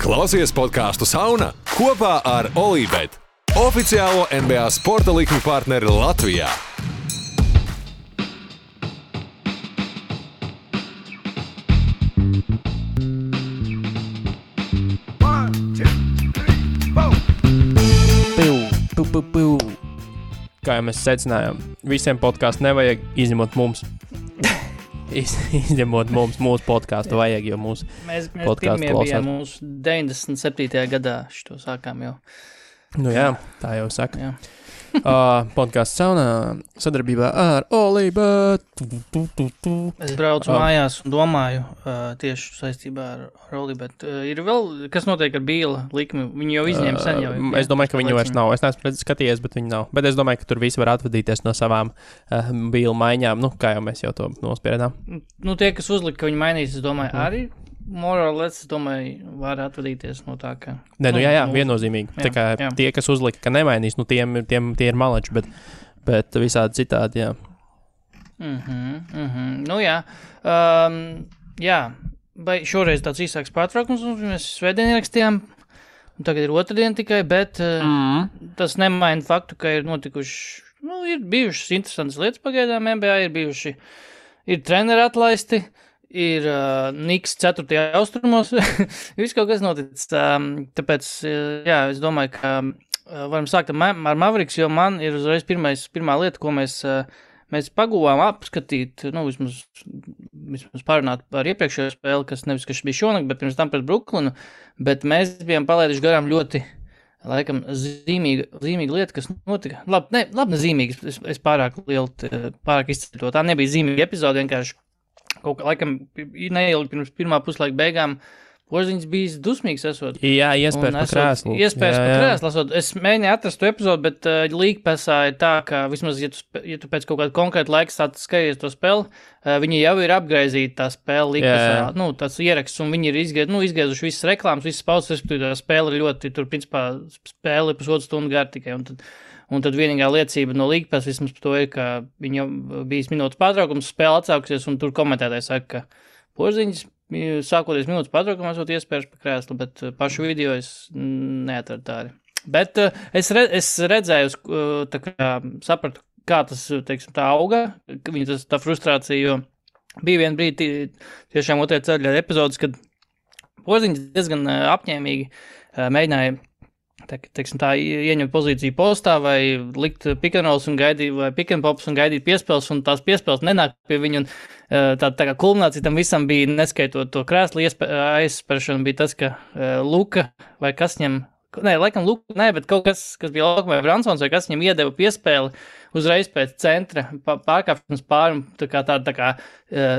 Klausies podcastu Sauna kopā ar Olībet, oficiālo NBA sporta likmi partneri Latvijā. Kā jau mēs secinājām, visiem podcastu nevajag, izņemot mums. Izņemot mums, mūsu podcastu vajag, jo mūsu podcastu klausās. Mēs mūsu 97. gadā šito sākām jau. Nu jā, tā jau saka. Jā. Podcasts Saunā sadarbībā ar Olībet. Es braucu mājās un domāju tieši saistībā ar Olībet. Ir vēl, kas notiek ar Bīla likmi? Viņi jau izņēma sen jau. Es domāju, ka viņu vairs nav. Es neesmu skatījies, bet viņi nav. Bet es domāju, ka tur visi var atvadīties no savām Bīla maiņām. Nu, kā jau mēs jau to nospiedām. Nu, tie, kas uzlika, ka viņi mainīs, es domāju, arī more or less, es domāju, var atvadīties no tā, ka... Nē, nu jā, viennozīmīgi. Tā kā tie, kas uzlika, ka nemainīs, nu tie ir maleči, bet visādi citādi, jā. Nu jā. Jā, vai šoreiz tāds īsāks pārtraukums, un mēs svētdien ierakstījām, un tagad ir otrdien tikai, bet tas nemaina faktu, ka ir notikuši, nu, ir bijušas interesantas lietas pagaidām NBA, ir treneri atlaisti, ir Niks 4. austrumos, viss kaut kas noticis, tāpēc, jā, es domāju, ka varam sākt ar Mavericks, jo man ir uzreiz pirmā lieta, ko mēs paguvām apskatīt, nu, vismaz pārunāt par iepriekšējo spēli, kas nevis, kas bija šonakt, bet pirms tam pret Brooklynu, bet mēs bijām palaiduši garām ļoti, laikam, zīmīga lieta, kas notika. Labi, ne zīmīga, es pārāk izceļu to, tā nebija zīmīga epizode, vienkārši kaut kā, laikam, neilgi pirms pirmā puslaika beigām Porziņš bija dusmīgs esot. Jā, iespējas pa krēslu. Iespējas pa krēslu esot. Es mēģināju atrast to epizodu, bet līgpasā ir tā, ka vismaz, ja tu pēc kaut kāda konkrēta laika skaties to spēli, viņi jau ir apgraizīti tā spēle līgpasā, nu, tāds ieraksts, un viņi ir izgaizuši visas reklāmas, visas pauses, respektīvi tā spēle ir ļoti, tur, principā, spēle ir pusotru stundu gar tikai, un tad vienīgā liecība no līgpas vismaz par to ir, ka viņa bijis minūtes pārtraukums, spēle atsākusies, un tur komentētāji saka, ka Porziņš sākoties minūtes pārtraukumā, esot iespējas pa krēslu, bet pašu video es neatradu tādi. Bet es redzēju, tā kā sapratu, kā tas, teiksim, tā auga, viņa tā frustrācija, jo bija vien brīdi tiešām otrajā ceļā epizodes, kad Porziņš diezgan apņēmīgi mēģināja teiksim, tā ieņemt pozīciju postā vai likt pick and rolls un gaidīt, vai pick and pops un gaidīt piespēles, un tās piespēles nenāk pie viņu, un tā kā kulminācija tam visam bija, neskaitot to krēslu aizsperšanu, bija tas, ka Luka vai kas ņem, laikam Luka, bet kaut kas bija Luka vai Bransons, vai kas viņam iedeva piespēli uzreiz pēc centra, pārkāpšanas pāri, tā kā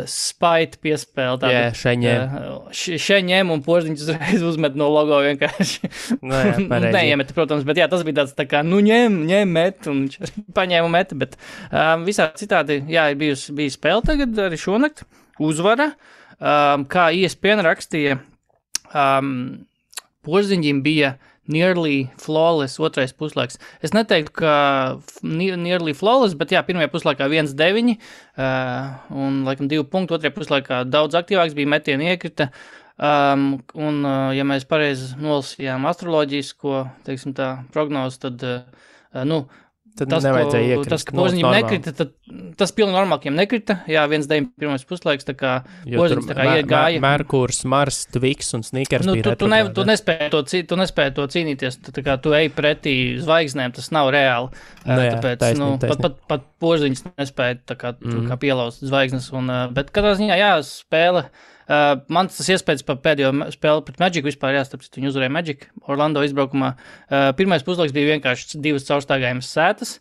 spaita piespēle. Šeņem, un Porziņš uzreiz uzmet no logo vienkārši. Neiemet, protams, bet jā, tas bija tāds tā kā, nu ņem, met, un viņš paņēma un meta, bet visā citādi, jā, ir bija spēle tagad arī šonakt, uzvara, kā ESPN rakstīja, Porziņģim bija nearly flawless otrais puslaiks. Es neteiktu, ka nearly flawless, bet jā, pirmajā puslaikā 1-9 un, laikam, 2 punktu, otrajā puslaikā daudz aktīvāks bija metieni iekrita. Un, ja mēs pareizi nolasījām astroloģisko, teiksim tā, prognozi, tad, tad nevajadzēja iekrist. Tas, ka Porziņģim nekrita, tad tas pilnīgi normāli, ka viņam nekrita. Jā, 1-9 pirmais puslaiks, tā kā Porziņģis tā kā iegāja. Merkurs, Mars, Tviks un Snickers bija retrogrādi. Tu nespēji to cīnīties, tā kā tu ej pretī zvaigznēm, tas nav reāli. Tāpēc, pat Porziņģis nespēja tā kā pielauzt zvaigznes. Bet katrā ziņā, jā, spēle. Man tas iespējas par pēdējo spēli pret Magic vispār, tāpēc viņi uzvarēja Magic Orlando izbraukumā. Pirmais puslaiks bija vienkārši 2 caurstaigājumas sētas.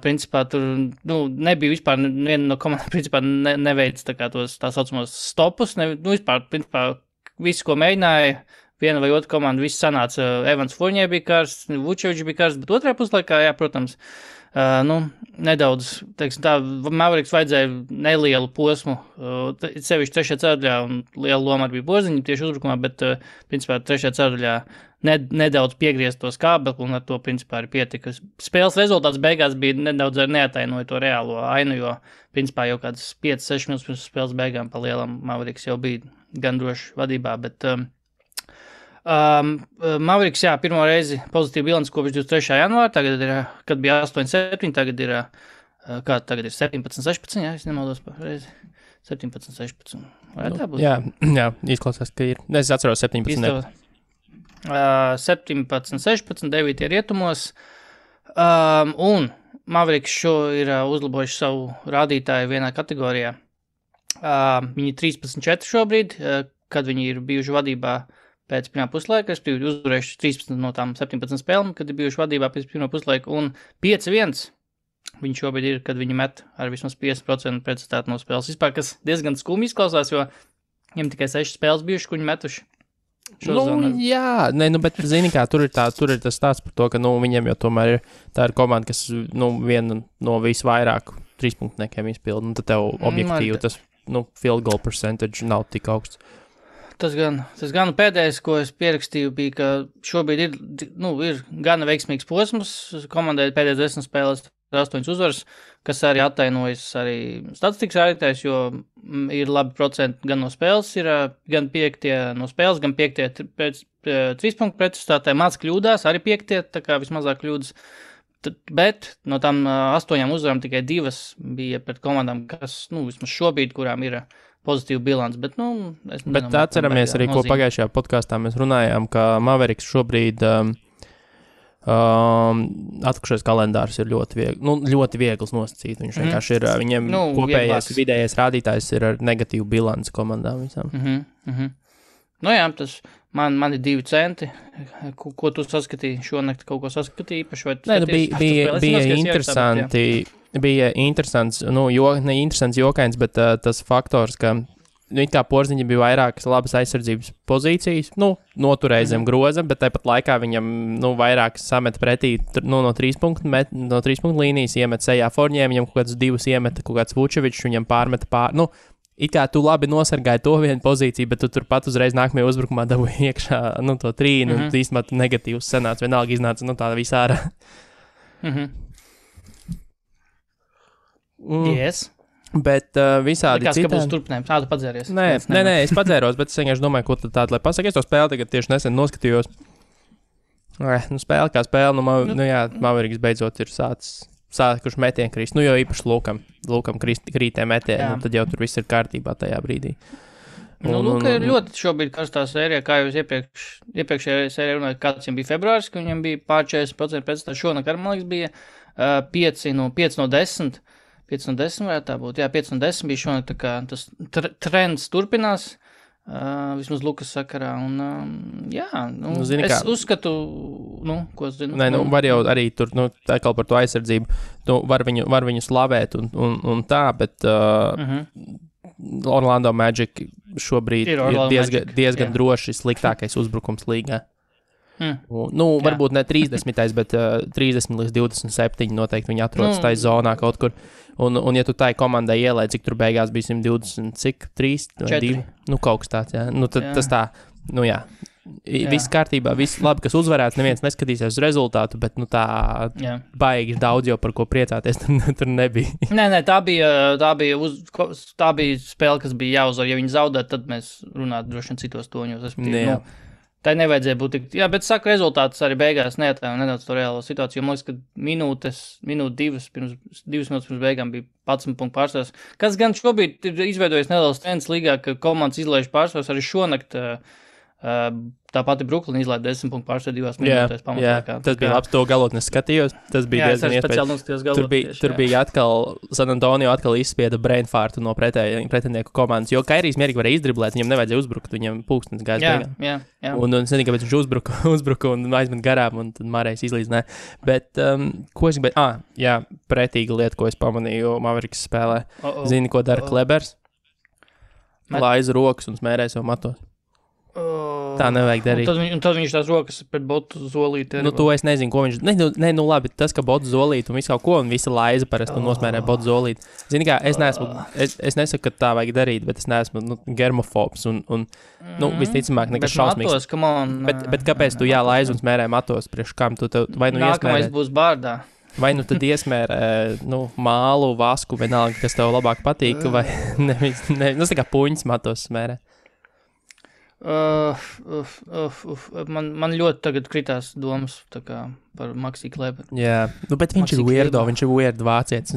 Principā tur, nebija vispār viena no komandām, principā neveic tā kā tā saucamos stopus. Vispār, principā, visu, ko mēģināja, viena vai otra komanda, viss sanāca. Evans Fournier bija karsts, Vučevičs bija karsts, bet otrajā puslaikā, jā, protams, nedaudz, teiksim tā, Mavericks vajadzēja nelielu posmu, sevišķi 3. ceturdaļā, un liela loma arī bija Porziņģim tieši uzbrukumā, bet, principā, 3. ceturdaļā nedaudz piegriezt to skābekli, un ar to, principā, arī pietika. Spēles rezultāts beigās bija nedaudz arī neatainoja to reālo ainu, jo, principā, jau kādas 5-6 minūtes pirms spēles beigām pa lielam Mavericks jau bija gan droši vadībā, bet Mavericks, jā, pirmo reizi pozitīvu bilanci kopš 23. janvāra, tagad ir, kad bija 8-7, tagad ir 17-16, jā, es nemaldos par reizi. 17-16. Vai tā būs? Jā, izklausās, ka ir. Es atceros 17. 17-16, 9 rietumos. Un Mavericks šo ir uzlabojuši savu rādītāju vienā kategorijā. Viņi 13-4 šobrīd, kad viņi ir bijuši vadībā pēc pirmā puslaika, es biju uzvarējuši 13 no tām 17 spēlēm, kad ir bijuši vadībā pēc pirmā puslaika, un 5-1 viņi šobrīd ir, kad viņi met ar vismaz 50% precizitāti no spēles. Vispār, kas diezgan skumji izklausās, jo viņiem tikai 6 spēles bijuši, ko viņi metuši. Jā, bet zini kā, tur ir tas stāsts par to, ka, viņiem jau tomēr ir, tā ir komanda, kas, viena no visvairāk 3-punktniekiem izpilda, un tad tev objektīvi tas, field goal percentage nav tik augsts. Tas gan pēdējais, ko es pierakstīju, bija, ka šobrīd ir gana veiksmīgs posms, komandai pēdējais 10 spēlēs 8 uzvaras, kas arī attainojas arī statistikas rādītājs, jo ir labi procenti gan no spēles, ir gan 5 no spēles, gan 5 pēc 3 punktu precizitātē, māc kļūdās, arī 5, tā kā vismazāk kļūdas, bet no tām 8 uzvarām tikai 2 bija pret komandām, kas, vismaz šobrīd, kurām ir pozitīvu bilanci, bet, Bet atceramies arī, ko pagājušajā podkāstā mēs runājām, ka Mavericks šobrīd atlikušais kalendārs ir ļoti viegls nosacīt. Viņš vienkārši ir, viņiem kopējais vidējais rādītājs ir ar negatīvu bilanci komandām visām. Jā, tas man ir 2 centi. Ko tu saskatīji šonakt? Kaut ko saskatīji īpaši? Bija interesants, ne interesants jokains, bet tas faktors, ka it kā Porziņam bija vairākas labas aizsardzības pozīcijas, noturēja zem groza, bet tāpat laikā viņam, vairāk samet pretī, no 3 punktu līnijas iemet sejā Forņiem, viņam kaut kāds 2 iemeta, kaut kāds Vučevičs, viņam pārmeta it kā tu labi nosargāji to vienu pozīciju, bet tu turpat uzreiz nākamajā uzbrukumā dabūji iekšā, to 3, un īstenībā negatīvs senāts, vienalga iznāca, tā visā ārā. Yes. Bet visādi citādi. Likās, ka būs turpinājums. Tu padzēries. Nē, es padzēros, bet es vienkārši domāju, ko tad tādu, lai pasaka. Es to spēli tagad tieši nesen noskatījos. Spēle kā spēle, Mavericks beidzot ir sākuši metienu krist. Jo īpaši Lūkam krītē metienu, tad jau tur viss ir kārtībā tajā brīdī. Lūka ir ļoti šobrīd karstā sērija, kā jūs iepriekšējā sērijā runājat, kāds viņam bija februāris, ka viņam bija pār 40% pēc tā šonakar, man liekas, bija 5 no 10. 5 no 10 varētu tā būt. Jā, 5 no 10 bija šonakt, tā kā tas trends turpinās, vismaz Lukas sakarā. Un, es uzskatu, ko es zinu. Nē, var jau arī tur, tā kā par to aizsardzību, var viņu slavēt un tā, bet Orlando Magic šobrīd ir diezgan droši sliktākais uzbrukums līgā. Varbūt ne 30, bet 30 līdz 27 noteikti viņi atrodas tajā zonā kaut kur. Un ja tu tai komandai ielēji, cik tur beigās bija 120, cik 3 vai 2, kaut kas tāds, jā. Tas tā, jā. Viss kārtībā, viss labi, kas uzvarēts, neviens neskatīsies uz rezultātu, bet tā baigi daudz jau par ko priecāties tur nebija. Nē, tā bija spēle, kas bija jāuzvar. Ja viņi zaudētu, tad mēs runātu droši vien citos toņos. Tā nevajadzēja būt tik. Jā, bet saku, rezultātus arī beigās neatāju nedaudz to reālo situāciju. Man liekas, ka minūte 2 minūtes pirms beigām bija 11 punktu pārsvars. Kas gan šobrīd ir izveidojis neliels trends līgā, ka komandas izlaiž pārsvars arī šonakt. Tā pati Brooklyn izlaida 10 punktu pārsvaru 2 minūtēs pamatlaikā. Tas bija labs, to galot neskatījos. Tas bija diezgan iespējams. Tur bija atkal, San Antonio atkal izspieda brainfartu no pretinieku komandas, jo Kairijs mierīgi varēja izdriblēt, viņam nevajadzēja uzbrukt, viņam pulkstenis gājas beigām. Jā. Un es nezinu, kāpēc viņš uzbruka un aizmet garām, un tad Mārējs izlīdzinājā. Bet, ko es gribēju? Pretīga lieta, ko es pamanīju Mavericks spēlē. Zini, ko dara Klebers? Laiza rokas un smērē sev matos. Tā nevajag darīt. Un tad viņš tās rokas pret botu zolīti. To es nezinu, ko viņš... labi, tas, ka botu zolīti un visu kaut ko, un visa laiza parasti nosmērē botu zolīti. Zini kā, es nesaku, ka tā vajag darīt, bet es neesmu germofobs un visticamāk nekas šausmīgs. Bet kāpēc tu laiza un smērē matos priekš kam? Vai nākamais būs bārdā. Vai tad iesmērē mālu, vasku, vienalga, kas tev labāk patīk, vai tā kā puņas matos smērē. Man ļoti tagad kritās domas par Maxi Kleberu. Jā, bet viņš ir weirdo, viņš ir weird vācietis.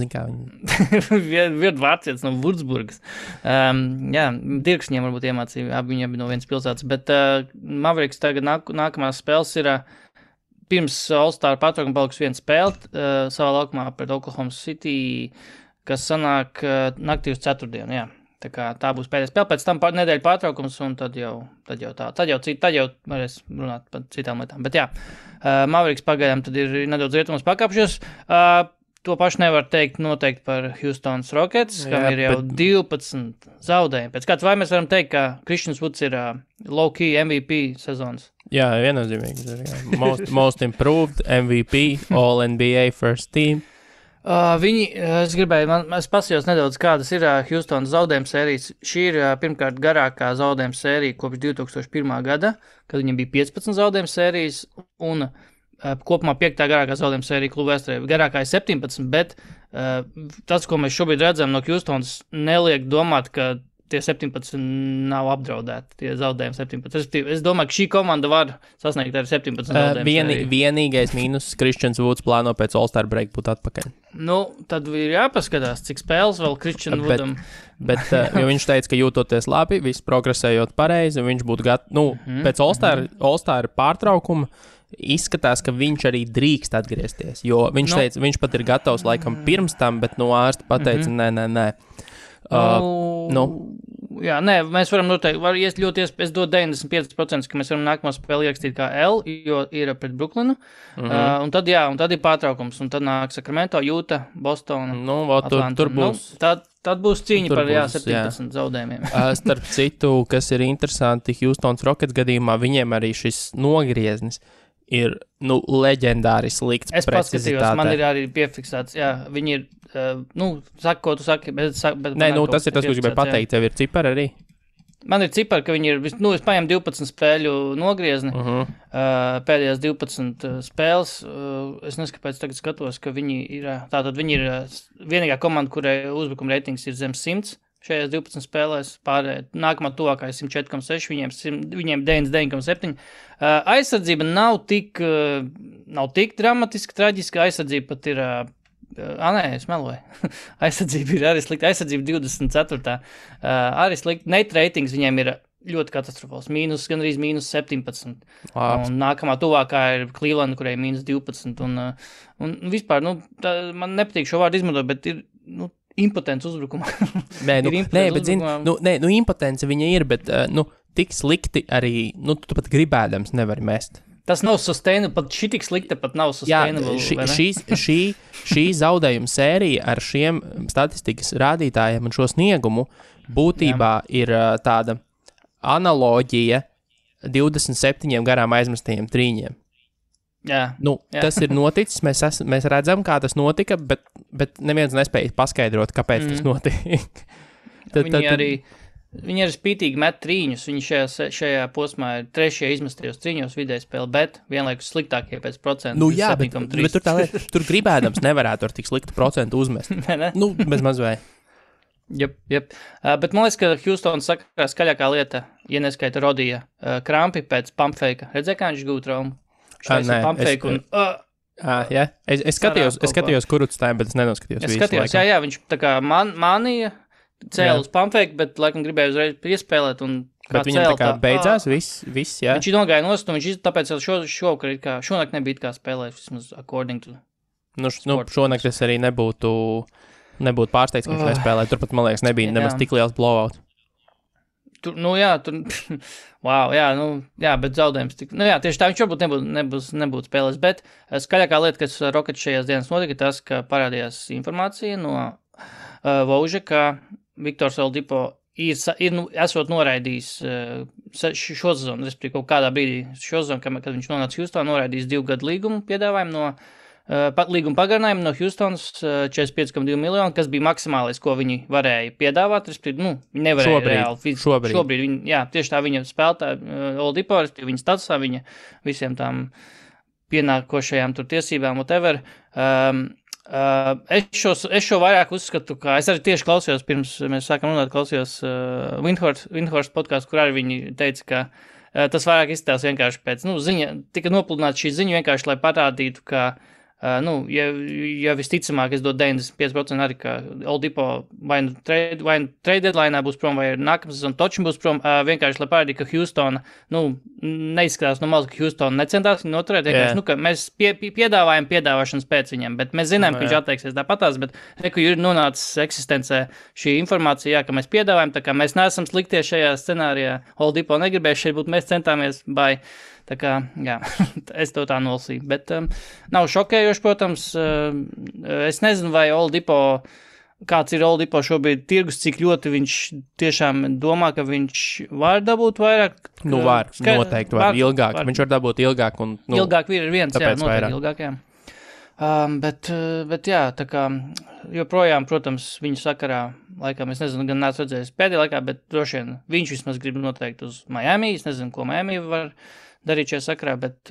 Weird vācietis no Würzburgas. Jā, Dirks viņiem varbūt iemācīja, viņi abi no vienas pilsētas, bet Mavericks tagad nākamās spēles ir pirms All-Star patraukuma palikusi viena spēle savā laukumā pret Oklahoma City, kas sanāk naktī uz ceturtdienu, jā. Tā būs pēdējā spēle, pēc tam nedēļa pārtraukums, un tad jau varēs runāt par citām lietām. Bet jā, Mavericks pagaidām tad ir nedaudz rietumos pakāpšies. To pašu nevar teikt noteikti par Houston's Rockets, kam ir jau 12 zaudējumi. Pēc kāds vai mēs varam teikt, ka Christian Woods ir low-key MVP sezonas? Jā, viennozīmīgi. Most improved MVP, All-NBA first team. Es pasījos nedaudz, kādas ir Houstonas zaudējuma sērijas. Šī ir pirmkārt garākā zaudējuma sērija kopš 2001. gada, kad viņam bija 15 zaudējuma sērijas, un kopumā 5. garākā zaudējuma sērija kluba vēsturē. Garākā ir 17, bet tas, ko mēs šobrīd redzam no Houstonas, neliek domāt, ka tie 17 nav apdraudēti, tie zaudējumi 17. Es domāju, ka šī komanda var sasniegt arī 17 zaudējumus. Vienīgais mīnus Christians Woods plāno pēc All-Star break būt atpakaļ. Tad ir jāpaskatās, cik spēles vēl Christian Woodam. Bet jo viņš teica, ka jūtoties labi, viss progresējot pareizi, viņš būtu pēc All-Star pārtraukuma izskatās, ka viņš arī drīkst atgriezties, jo viņš teica, viņš pat ir gatavs laikam pirms tam, bet ārsti pateica, nē. Jā, nē, mēs varam noteikti, es dodu 95%, ka mēs varam nākamo spēli ierakstīt kā L, jo ir pret Brooklynu, un tad ir pārtraukums, un tad nāk Sacramento, Utah, Bostona, Atlanta. Tur būs. Tad būs cīņa par 17 zaudējumiem. Starp citu, kas ir interesanti, Houston's Rockets gadījumā, viņiem arī šis nogrieznis ir, leģendāri slikts precizitātē. Es paskatījos, man ir arī piefiksēts, jā, viņi ir, saka, ko tu saki, bet nē, tas ir tas, ko gribēju pateikt, tev ir cipari arī? Man ir cipari, ka viņi ir, es paņemu 12 spēļu nogriezni, pēdējās 12 spēles, es nezinu, kāpēc tagad skatos, ka viņi ir vienīgā komanda, kurai uzbrukuma reitings ir zem 100, šajās 12 spēlēs, nākamā tuvākā ir 104,6, viņiem 99,7. Aizsardzība nav tik dramatiski, traģiska, aizsardzība pat ir, es meloju, aizsardzība ir arī slikta, aizsardzība 24. Arī slikta, net ratings viņiem ir ļoti katastrofāls, gandrīz mīnus 17. Un nākamā tuvākā ir Cleveland, kurai mīnus 12. Un vispār, man nepatīk šo vārdu izmantot, bet ir, impotents uzbrukuma. Bet impotence viņa ir, bet, tik slikti arī, tu pat gribēdams nevari mest. Tas nav sustainable, pat šī tik slikta pat nav sustainable. Jā, šī zaudējuma sērija ar šiem statistikas rādītājiem un šo sniegumu būtībā ir tāda analoģija 27 garām aizmestajiem trīņiem. Jā. Tas ir noticis, mēs redzam, kā tas notika, bet neviens nespēja paskaidrot, kāpēc tas notika. Viņi arī spītīgi met trīņus, viņi šajā posmā ir 3. izmestajos trīņos vidēji spēle, bet vienlaikus sliktākie pēc procentu. Bet tur gribēdams nevarētu ar tik sliktu procentu uzmest. Bez mazvēja. Jep. Bet man liekas, ka Houston saka skaļākā lieta, ja neskaita Rodija krampi pēc pumpfeika. Redzēja, kā viņš gūt traumu? Es skatījos kurutstājiem, bet es nenoskatījos visu. Es skatījos, jā, viņš tā kā manīja, cēla uz pumpfeiku, bet laikam gribēja uzreiz piespēlēt un bet viņam tā kā beidzās viss, jā. Viņš nogāja nost, un viņš tāpēc šonakt nebija kā spēlēt, vismaz according to šonakt es arī nebūtu pārsteigts, ka viņš nespēlē. Turpat, man liekas, nebija nemaz tik liels blowout. Bet zaudējums tieši tā, viņš varbūt nebūtu spēlēs, bet skaļākā lieta, kas Rockets šajās dienas notika, tas, ka parādījās informācija no Vauža, ka Viktors Oladipo esot noraidījis šo sezonu, respektīvi kaut kādā brīdī šo sezonu, kad viņš nonāca Houstonā, noraidījis 2 gadu līgumu piedāvājumu līguma pagarinājumu no Houstonas 45,2 miljonu, kas bija maksimālais, ko viņi varēja piedāvāt, respektīvi, viņi nevarēja reāli. Šobrīd viņi, tieši tā viņa spēlētāja Oladipo, respektīvi viņa statusā, viņa visiem tām pienākošajām tur tiesībām, whatever. Es šo vairāk uzskatu, ka es arī tieši klausījos, pirms mēs sākam runāt, klausījos Windhorst podcastu, kur arī viņi teica, ka tas vairāk izstāsta vienkārši pēc, ziņa, tika nopludināta šī ziņa vienkārši, lai parādītu, ka ja visticamāk, es dodu 95% arī, ka Oldipo vai nu trade deadline būs prom, vai nākamā sezona točim būs prom, vienkārši, lai parādītu, ka Houstona, neizskatās no malas, ka Houstona necentās viņu noturēt, vienkārši, ka mēs piedāvājam piedāvāšanas pēc viņam, bet mēs zinām, ka viņš atteiksies tāpatās, bet reku ir nonācis eksistencē šī informācija, ka mēs piedāvājam, tā kā mēs neesam sliktie šajā scenārijā, Oldipo negribēja šeit būt, mēs centāmies, tā kā, jā, es to tā nolasīju, bet nav šokējoši, protams, es nezinu, vai kāds ir Oldipo šobrīd tirgus, cik ļoti viņš tiešām domā, ka viņš var dabūt vairāk. Noteikti var, ilgāk, viņš var dabūt ilgāk. Un, ilgāk ir viens, jā, noteikti vairāk. Ilgāk, jā. Bet jā, tā kā joprojām, protams, viņu sakarā, laikam, es nezinu, gan neesmu redzējis pēdējā laikā, bet droši vien viņš vismaz grib noteikti uz Miami, es nezinu, ko Miami var darīt šajā sakarā, bet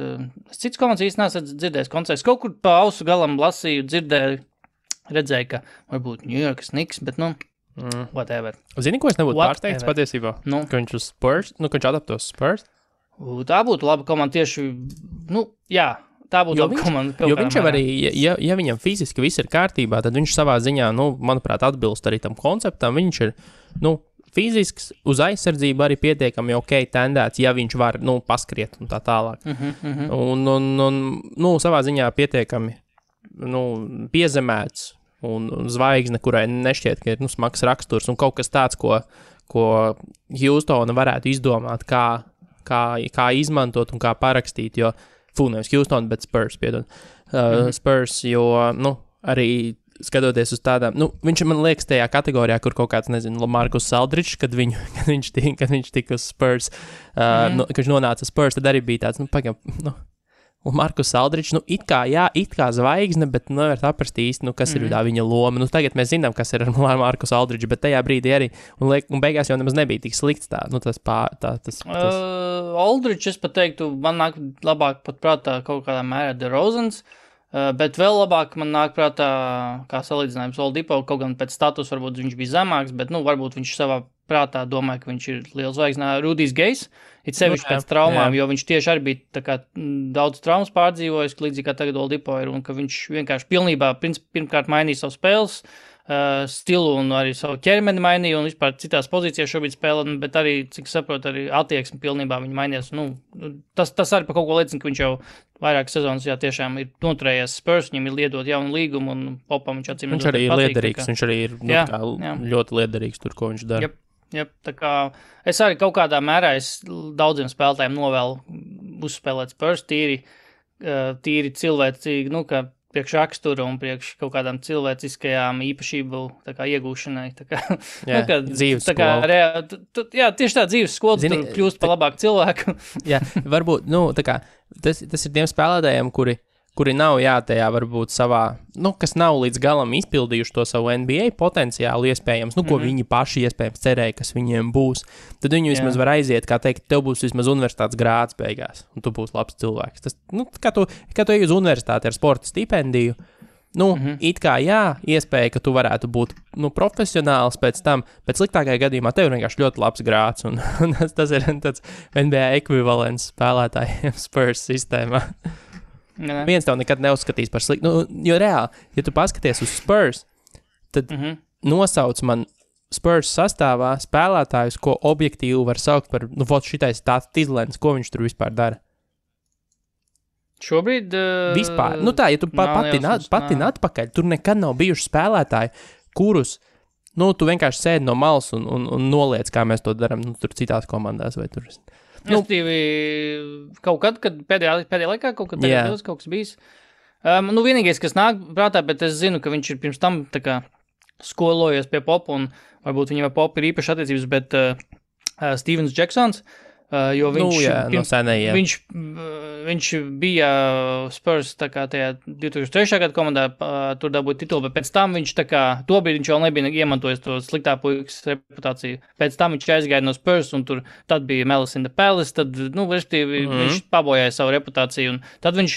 cits komandas īsti neesmu dzirdējis koncerts. Kaut kur pa ausu galam lasīju, redzēju, ka varbūt New York Knicks, bet whatever. Zini, ko es nebūtu pārsteigts patiesībā? Ka viņš uz Spurs, ka viņš adaptos Spurs? Tā būtu laba komanda tieši, jā, tā būtu laba komanda. Jo viņš jau arī, ja viņam fiziski viss ir kārtībā, tad viņš savā ziņā, manuprāt, atbilst arī tam konceptam. Viņš ir, fizisks, uz aizsardzību arī pietiekami tendēts, ja viņš var, paskriet un tā tālāk. Un savā ziņā pietiekami, piezemēts un zvaigzne, kurai nešķiet, ka ir, smags raksturs un kaut kas tāds, ko Houstona varētu izdomāt, kā izmantot un kā parakstīt, jo, nevis Houston, bet Spurs, piedod. Spurs, jo, arī skatoties uz tādām, viņš man liekas tajā kategorijā, kur kaut kāds, nezinu, Markus Aldridžs, kad viņš tika uz Spurs, kad viņš nonāca Spurs, tad arī bija tāds, Markus Aldridžs, it kā zvaigzne, bet nevar saprast īsti, kas ir tā viņa loma. Tagad mēs zinām, kas ir ar Markus Aldridžu, bet tajā brīdī arī, un beigās jau nemaz nebija tik slikts tā, Aldridžs, es pat teiktu, man nāk labāk pat prātā kaut kādā mērā DeRozans, bet vēl labāk man nāk prātā, kā salīdzinājums Oldipo, kaut gan pēc status varbūt viņš bija zemāks, bet, varbūt viņš savā prātā domāja, ka viņš ir liels zvaigznā. Rudijs Gejs, it sevišķi pēc traumām, jo viņš tieši arī bija tā kā daudz traumas pārdzīvojis, līdzīgi kā tagad Oldipo ir, un ka viņš vienkārši pilnībā, pirmkārt mainīja savu spēles stilu un arī savu ķermeni mainīja un vispār citās pozīcijās šobrīd spēlē, bet arī, cik saprotu, arī attieksmi pilnībā viņa mainījās. Tas arī par kaut ko liecina, ka viņš jau vairākas sezonas tiešām ir noturējies Spurs, viņam ir liedot jaunu līgumu un Popam viņš atcīm. Viņš arī ir liederīgs, viņš arī ir ļoti liederīgs tur, ko viņš dara. Jep, tā kā es arī kaut kādā mērā daudziem spēlētājiem novēlu uzspēlēt Spurs tīri cilvēcīgi, ka priekš rakstura un priekš kaut kādām cilvēciskajām īpašību iegūšanai. Dzīves skola. Tieši tā dzīves skola, tur kļūst par labāku cilvēku. Jā, varbūt, tas ir tiem spēlētājiem, kuri nav, tajā varbūt savā, kas nav līdz galam izpildījuši to savu NBA potenciālu iespējams, ko viņi paši iespējams cerēja, kas viņiem būs, tad viņi vismaz var aiziet, kā teikt, tev būs vismaz universitātes grāds beigās, un tu būsi labs cilvēks. Tas, kā tu ej uz universitāti ar sporta stipendiju, it kā iespēja, ka tu varētu būt, profesionāls pēc tam, bet sliktākajā gadījumā tev ir vienkārši ļoti labs grāds, un tas ir tāds NBA ekvivalents spēlētājiem Spurs sistēmā. Viens tev nekad neuzskatīs par sliktu. Jo reāli, ja tu paskaties uz Spurs, tad nosauc man Spurs sastāvā spēlētājus, ko objektīvi var saukt par, šitais tāds Tizlens, ko viņš tur vispār dara. Šobrīd? Vispār. Ja tu patin atpakaļ, tur nekad nav bijuši spēlētāji, kurus, tu vienkārši sēdi no malas un noliec, kā mēs to daram, tur citās komandās vai tur. Kaut kad pēdējā laikā, kaut kas bijis. Vienīgais, kas nāk prātā, bet es zinu, ka viņš ir pirms tam tā kā skolojies pie Popa, un varbūt viņam ar Popu ir īpaši attiecības, bet Stevens Jacksons, jo viņš, viņš bija Spurs tā kā tajā 2003. Gada komandā, tur dabūja titulu, bet pēc tam viņš tā kā, tobrīd viņš vēl nebija iemantojis to sliktā puikas reputāciju. Pēc tam viņš aizgāja no Spurs, un tad bija Malice in the Palace, tad, respektīvi, viņš pabojāja savu reputāciju, un tad viņš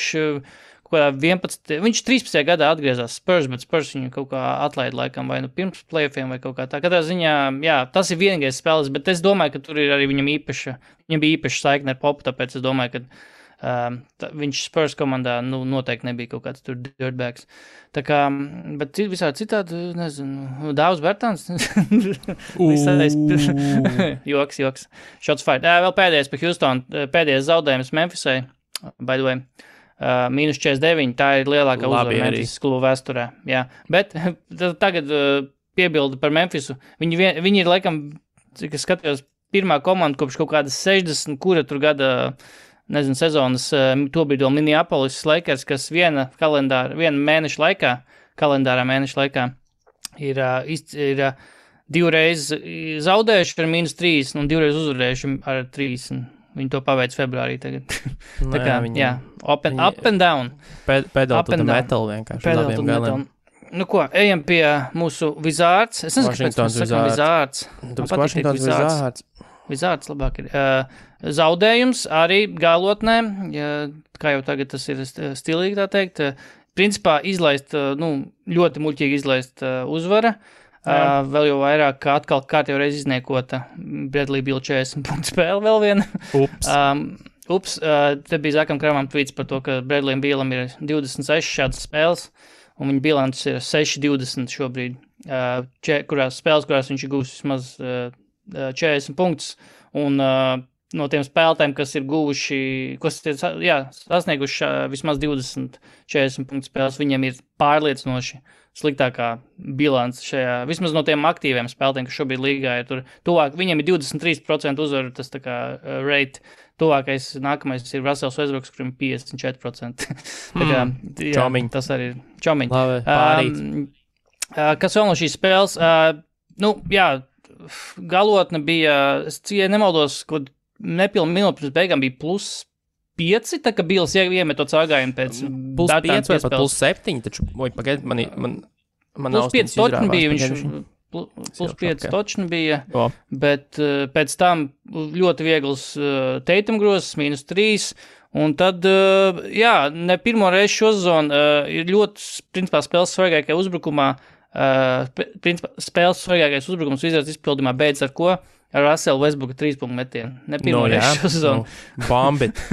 kādā 11, viņš 13. gadā atgriezās Spurs, bet Spurs viņu kaut kā atlaida laikam vai nu pirms playoffiem vai kaut kā tā. Katrā ziņā, jā, tas ir vienīgais spēles, bet es domāju, ka tur ir arī viņam bija īpaša saikne ar Popu, tāpēc es domāju, ka viņš Spurs komandā noteikti nebija kaut kāds tur dirtbags. Tā kā, bet visādi citādi, nezinu, Dāvs Bertāns. Joks. Shots fired. Vēl pēdējais par Houston, pēdējais zaudējums Memphisai, by the way. -49, tā ir lielākā uzvara Memphis klubu vēsturē. Jā. Bet tagad piebildi par Memphisu. Viņi ir, laikam, cik es skatījos, pirmā komanda kopš kaut kādas 60, kura tur gada, nezinu, sezonas, tobrīd vēl Minneapolis Lakers, kas viena mēneša laikā, kalendārā mēneša laikā, ir divreiz zaudējuši ar -3 un divreiz uzvarējuši ar 3. Viņi to paveic februārī tagad. Tā kā, jā, up and down. Pedal to the metal vienkārši. Pedal to the metal. Nu ko, ejam pie mūsu Wizards. Es nezinu, kāpēc mēs sakam Wizards. Washingtons Wizards. Wizards labāk ir. Zaudējums arī galotnē, kā jau tagad tas ir stilīgi tā teikt. Principā izlaist, ļoti muļķīgi izlaist uzvara. Vēl jau vairāk, kā atkal kārtējo reizi izniekota Bradley Beal 40 punktu spēle vēl viena. Te bija Zakam Kramam tweets par to, ka Bradley Bealam ir 26 šādas spēles, un viņa bilants ir 6-20 šobrīd, kurās viņš ir gūs vismaz 40 punktus, un no tiem spēlētājiem, kas ir sasnieguši vismaz 20-40 punktu spēles, viņiem ir pārliecinoši sliktākā bilants šajā, vismaz no tiem aktīviem spēlētājiem, kas šobrīd līgā ir tur tuvāk, viņiem ir 23% uzvaru, tas tā kā rate, tuvākais nākamais ir Russells Westbrooks, kurim 54%. Tā kā, jā, tas arī ir čomiņ. Labi, pārīt. Kas vēl no šīs spēles? Galotne bija, es nemaldos, kad nepilnu minūti pirms beigām bija +5, tā ka Bils iemet to cāgājumu pēc +5 vai pat +7, taču, pagaid, man +5 točni bija, +5 točni bija, bet pēc tam ļoti viegls Tatum grozs, -3, un tad, ne pirmo reizi šo sezonu ir ļoti, principā, spēles svarīgākajā uzbrukumā, spēles svarīgākais uzbrukums Wizards izpildījumā beidz ar ko? Ar Russellu Westbrooka 3-punktu metienu. Ne pirmo reizi šo sezonu.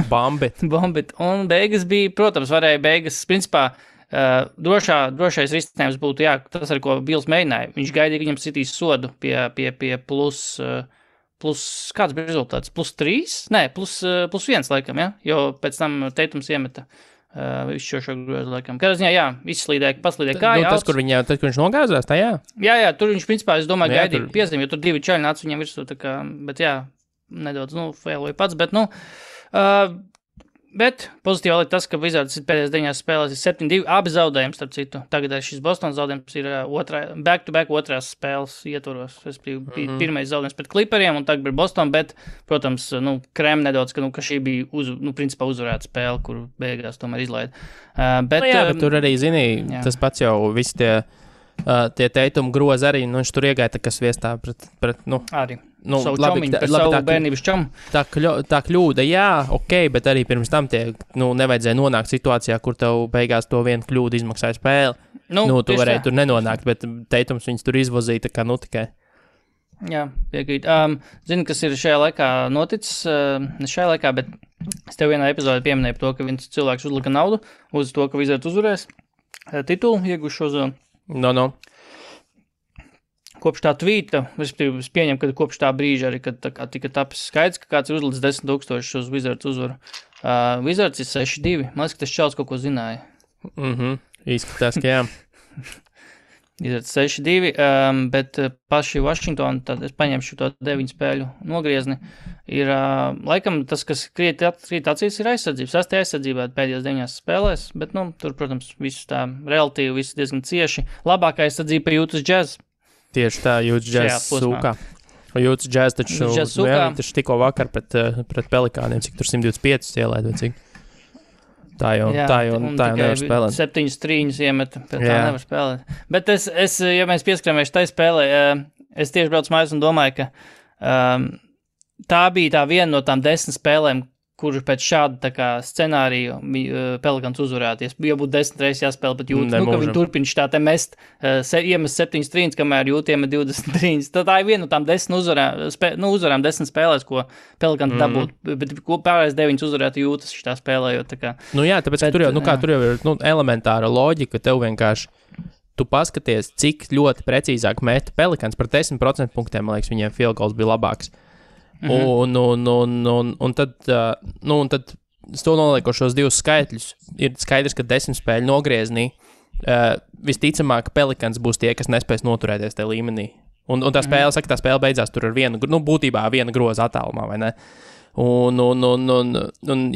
Bombit. Un beigas bija, protams, varēja beigas, principā, drošais risinājums būtu, tas, ar ko Bils mēģināja. Viņš gaidīja, ka viņam sitīs sodu pie plus, kāds bija rezultāts? +3? Nē, +1 laikam, ja? Jo pēc tam Tatums iemeta visu šo grozu laikam. Kādā ziņā, paslīdēja kāja. Tas, kur viņš nogāzās, tā jā? Jā, tur viņš, principā, es domāju, gaidīja piezīmi, jo tur 2 čaļi nāca viņam virsū, tā kā, bet nedaudz, failoja pats, bet, bet pozitīvi ir tas, ka Wizards pēdējās 9 spēlēs ir 7-2, abi zaudējums, starp citu. Tagad šis Bostonas zaudējums ir back-to-back otrās spēles ietvaros. Es bija pirmais zaudējums pret Clipperiem, un tagad ir Boston, bet, protams, krēm nedaudz, ka šī bija, principā uzvarēta spēle, kur beigās tomēr izlaida. Bet tur arī, tas pats jau visi tie Tatum grozi arī, viņš tur iegāja tā, kas viestā pret arī. Savu čomiņu, par savu bērnības čomu. Tā kļūda, bet arī pirms tam nevajadzēja nonākt situācijā, kur tev beigās to vienu kļūdu izmaksāja spēli. Tu varēji tur nenonākt, bet Tatums viņus tur izvozīja, tā kā tikai. Jā, piekrīt. Zini, kas ir šajā laikā noticis, ne šajā laikā, bet es tev vienā epizodē pieminēju par to, ka viens cilvēks uzlika naudu uz to, ka Wizards uzvarēs titulu, ieguši šo zonu. Kopš tā tvīta, es pieņemu, ka kopš tā brīža arī, kad tika tapis skaidrs, ka kāds ir uzlicis 10,000 uz Wizards uzvaru. Wizards ir 6-2. Man liekas, ka tas čels kaut ko zināja. Izskatās, ka jā. Wizards 6-2, bet paši Washington, tad es paņemšu to 9 spēļu nogriezni, ir laikam tas, kas krīt acīs, ir aizsardzības. 6. aizsardzībā pēdējās 9 spēlēs, bet, tur, protams, visu tā relatīvi, visu diezgan cieši. Labākā aizsardzība ir Utah Jazz. Tieši tā, Utah Jazz sūkā. Utah Jazz taču tikko vakar pret Pelikāniem, cik tur 125 ielaid, vai cik. Tā jau nevar spēlēt. 7 trīņus iemeta, bet tā nevar spēlēt. Bet es ja mēs pieskaramies tai spēlē, es tieši braucu mājās un domāju, ka tā bija tā viena no tām 10 spēlēm, kur pēc šāda scenārija Pelikans uzvarēties. Ja būtu 10 reizes jāspēlē, bet jūt, ka viņi turpina šitā te mest, iemest 7 trīņus, kamēr jūtiem 20 trīņus. Tad tā ir viena no tām 10 uzvarām 10 spēlēs, ko Pelikans dabūtu, bet pārējais 9 uzvarētu jūtas šitā spēlējot. Tāpēc tur jau ir elementāra loģika, tev vienkārši tu paskaties, cik ļoti precīzāk meta Pelikans par 10% punktiem, man liekas, viņiem field goals bija labāks. Un tad to noliekošos 2 skaitļus ir skaidrs, ka 10 spēļu nogrieznī visticamāk Pelikans būs tie, kas nespēs noturēties tajā līmenī. Un tā spēle beidzās tur ar būtībā viena groza attālumā, vai ne?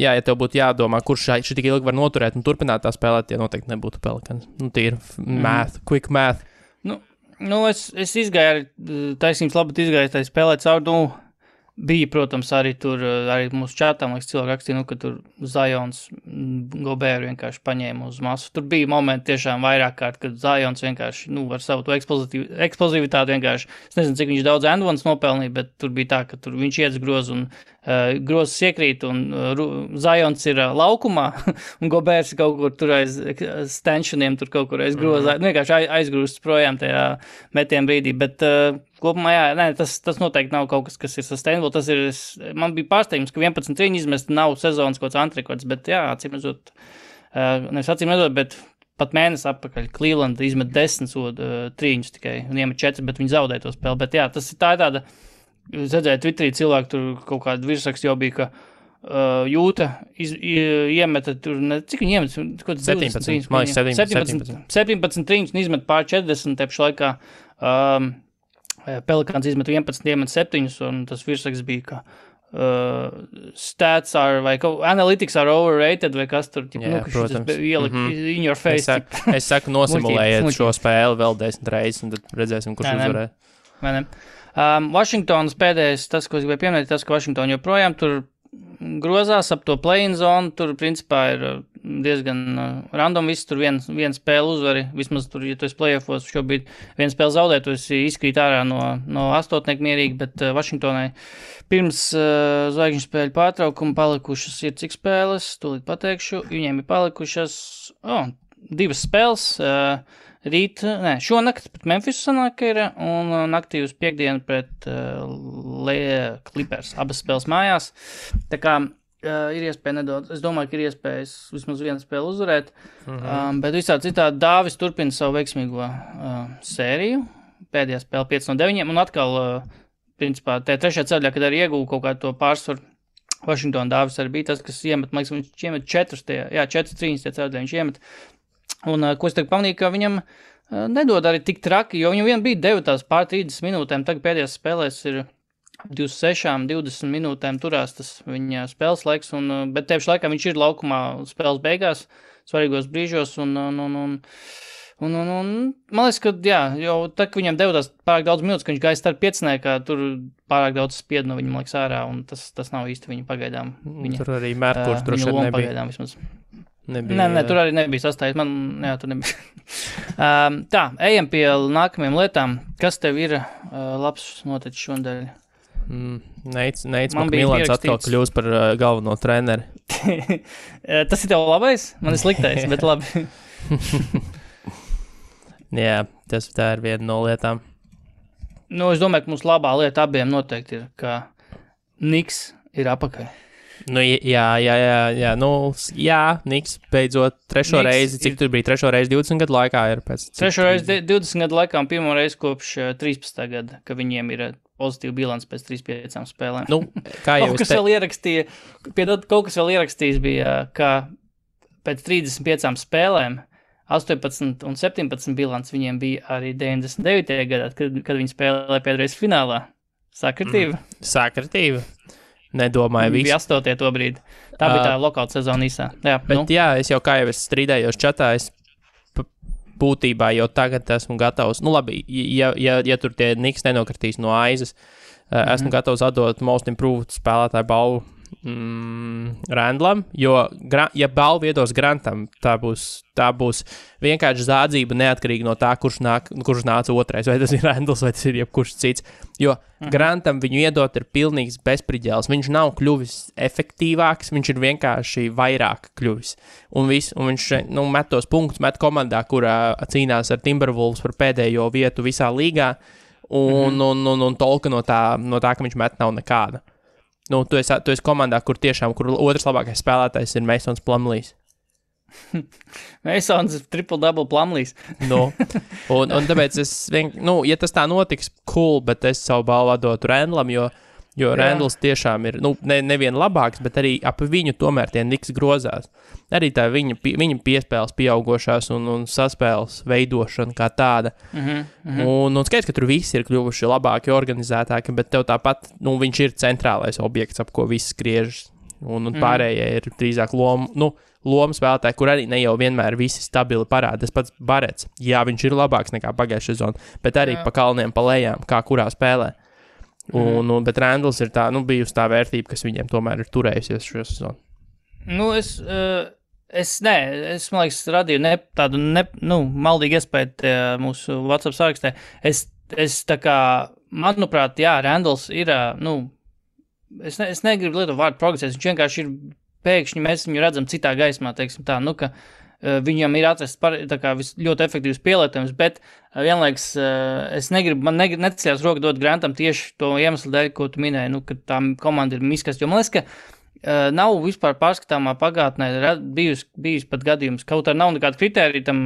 Ja tev būtu jādomā, kurš šī tik ilgi var noturēt un turpināt tā spēlēt, tie noteikti nebūtu Pelikans. Tīri math, quick math. Es izgāju, taisnības labāk izgāju tā spēlēt caur, bija, protams, arī tur, arī mūsu čatā, man liekas, cilvēki rakstīja, ka tur Zions Gobēru vienkārši paņēma uz masu. Tur bija momenti tiešām vairāk kārt, kad Zions vienkārši, ar savu to eksplozivitāti vienkārši, es nezinu, cik viņš daudz endvans nopelnīja, bet tur bija tā, ka tur viņš iedz grozu un grozs iekrīt un Zions ir laukumā un Gobērs ir kaut kur tur aiz stenšaniem, tur kaut kur aiz grozā, vienkārši aizgrūsts projām tajā metienu brīdī, bet kopumā, tas noteikti nav kaut kas ir sustainable. Man bija pārsteigums, ka 11 trīņu izmest nav sezonas kaut kāds antrekords, bet acīmredzot, bet pat mēnesi atpakaļ Cleveland izmet 10 trīņus tikai un iemet 4, bet viņi zaudēja to spēli. Bet tā ir tāda, es redzēju Twitterī cilvēku, tur kaut kāda virsraksts jau bija, ka Jūta iemeta tur, cik viņi iemeta? 17 trīņus un izmet pār 40 tepšu laikā. Pelikans izmet 11, iemet 7, un tas virsraksts bija, ka stats are, vai analytics are overrated, vai kas tur, protams. Ielikt in your face. Es saku, nosimulējiet šo spēli vēl 10 reizes, un tad redzēsim, kurš uzvarē. Vai ne? Washingtonas pēdējais, tas, ko es gribēju pieminēt, tas, ka Washington joprojām tur grozās ap to play-in zonu, tur principā ir diezgan random viss, tur viena spēle uzvari, vismaz tur, ja tu esi play-offos, šobrīd viena spēle zaudē, tu esi izkrīt ārā no astotnieku mierīgi, bet Washingtonai pirms zvaigžņu spēļu pārtraukuma palikušas ir cik spēles, tūlīt pateikšu, viņiem ir palikušas 2 spēles, šonakt pret Memphisu sanāk ir, un naktī uz piekdienu pret Clippers, abas spēles mājās. Tā kā ir iespēja nedaudz, es domāju, ka ir iespējas vismaz vienu spēli uzvarēt, bet visā citādi Dāvis turpina savu veiksmīgo sēriju, pēdējā spēle 5-9, un atkal, principā, tajā trešajā ceļā, kad arī ieguva kaut kādu to pārsvaru, Washington Dāvis arī bija tas, kas iemet, man liekas, viņš iemet 4 trīņas tie ceļā, viņš iemet. Un ko es tagad pamanīju, ka viņam nedod arī tik traki, jo viņam vien bija devotās pār 30 minūtēm, tagad pēdējās spēlēs ir 26-20 minūtēm turās tas viņa spēles laiks, bet tieši laikā viņš ir laukumā spēles beigās, svarīgos brīžos, un man liekas, ka jau tā, ka viņam devotās pārāk daudz minūtes, ka viņš gāja starp pieciniekā, tur pārāk daudz spied no viņa, man liekas, ārā, un tas nav īsti viņa pagaidām. Tur arī Mērkurs droši vien nebija. Pagaidām vismaz. Nē, tur arī nebija sastājies. Tur nebija. Tā, ejam pie nākamajām lietām. Kas tev ir labs noticis šodien? Neits Milans atkal kļūs par galveno treneri. Tas ir tev labais? Man ir sliktais, bet labi. Jā, tā ir viena no lietām. Es domāju, ka mums labā lieta abiem noteikti ir, ka Niks ir apakaļ. Niks beidzot trešo reizi, cik tur bija trešo reizi 20 gadu laikā ir pēc... Trešo reizi 20 gadu laikā un pirmo reizi kopš 13. gada, ka viņiem ir pozitīva bilants pēc 3-5 spēlēm. Kā jau kaut kas vēl ierakstījis bija, ka pēc 35 spēlēm 18 un 17 bilants viņiem bija arī 99. gadā, kad viņi spēlēja pēdreiz finālā. Sakritība? Sakritība. Nedomāju visu. Bija 8. to brīdi. Tā bija tā lokāla sezona īsā. Es jau kā jau es strīdējos čatā, es būtībā jau tagad esmu gatavs. Labi, ja tur tie Niks nenokritīs no aizes, esmu gatavs atdot Most Improved spēlētāju balvu Randlam, jo, ja balvu iedos Grantam, tā būs vienkārši zādzība neatkarīgi no tā, kurš nāca otrais, vai tas ir Randls, vai tas ir jebkurš cits. Jo Grantam viņu iedot ir pilnīgs bezpriģēls. Viņš nav kļuvis efektīvāks, viņš ir vienkārši vairāk kļuvis. Un viņš met tos punktus, met komandā, kurā cīnās ar Timberwolves par pēdējo vietu visā līgā, un tolka no tā, ka viņš met nav nekāda. Tu esi komandā, kur otrs labākais spēlētājs ir Masons Plumlees. Masons triple-double Plumlees. Un tāpēc ja tas tā notiks, cool, bet es savu balvu dotu Randlam, jo Randls tiešām ir, nevien labāks, bet arī ap viņu tomēr tie Knicks grozās. Arī tā viņa piespēles pieaugošās un saspēles veidošana kā tāda. Un skaidrs, ka tur visi ir kļuvuši labāki, organizētāki, bet tev tāpat, viņš ir centrālais objekts, ap ko viss skriežas. Un pārējie ir drīzāk lomu spēlētāji, kur arī ne jau vienmēr visi stabili parāda. Tas pats Barets, viņš ir labāks nekā pagājušajā sezonā, bet arī pa kalniem, pa lejām, kā kurā spēlē. Bet Randls ir tā, bijusi tā vērtība, kas viņiem tomēr ir turējusies šo sezonu. Es man liekas, radīju tādu maldīgu iespēju mūsu WhatsApp sarakstē. Es tā kā, manuprāt, Randls ir, es negribu lietot vārdu progresēs, viņš vienkārši ir pēkšņi, mēs viņu redzam citā gaismā, teiksim tā, ka viņam ir atrasts ļoti efektīvs pielietojums, bet vienlaiks es negribu, man necēlās roka dot Grantam tieši to iemeslu dēļ, ko tu minēji, ka tā komanda ir miskast, jo man liekas, ka nav vispār pārskatāmā pagātnē bijis pat gadījums, kaut arī nav nekāda kritērija tam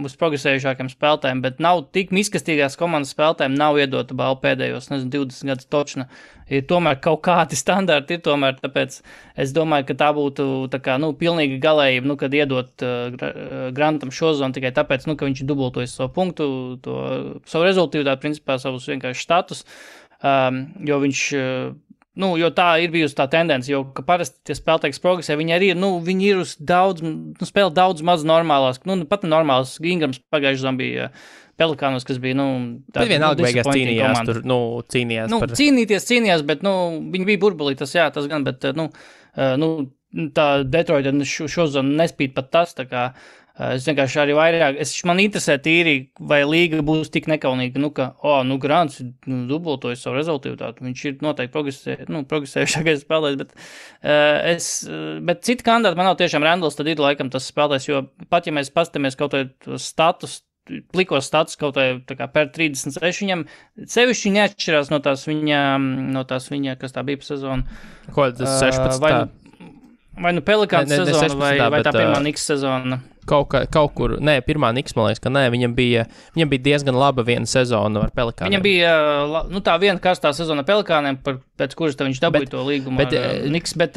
uz progresējušākiem spēlētājiem, bet nav tik miskastīgās komandas spēlētājiem nav iedota balva pēdējos, 20 gadus točna. Ir tomēr kaut kādi standarti ir tomēr, tāpēc es domāju, ka tā būtu tā kā, pilnīga galējība, kad iedot Grantam šo zonu tikai tāpēc, ka viņš dubultojas savu punktu, savu rezultīvitāti, principā savus vienkārši status, jo viņš... jo tā ir bijusi tā tendence, jo, ka parasti tie spēlētāji progresē, viņi arī ir, viņi ir uz daudz, spēlē daudz maz normālās, pat normālas. Ingrams pagājuši zombija Pelikānos, kas bija, bet vienalga beigās cīnījās tur, cīnījās par... Cīnījās, bet, viņi bija burbulī, tas gan, bet, tā Detroita šo zonu nespīd pat tas, tā kā, es vienkārši arī vairāk, man interesē tīri, vai līga būs tik nekaunīga, Grants dubultojas savu rezultīvitāti, viņš ir noteikti progresējušākais spēlētājs, bet citi kandidāti man nav tiešām Randls, tad ir laikam tas spēlētājs, jo pat ja mēs pastamies kaut vai status, plikos status kaut vai tā kā per 36, viņam sevišķi neatšķirās no tās viņa, kas tā bija pa sezonu. Ko tas 16? Vai Pelikāns sezona, vai tā pirmā Knicks sezona? Kaut kur, pirmā Knicks, man liekas, ka viņam bija diezgan laba viena sezona ar Pelikāniem. Viņam bija, tā viena karstā sezona Pelikāniem, pēc kuras viņš dabūja to līgumu ar Knicks, bet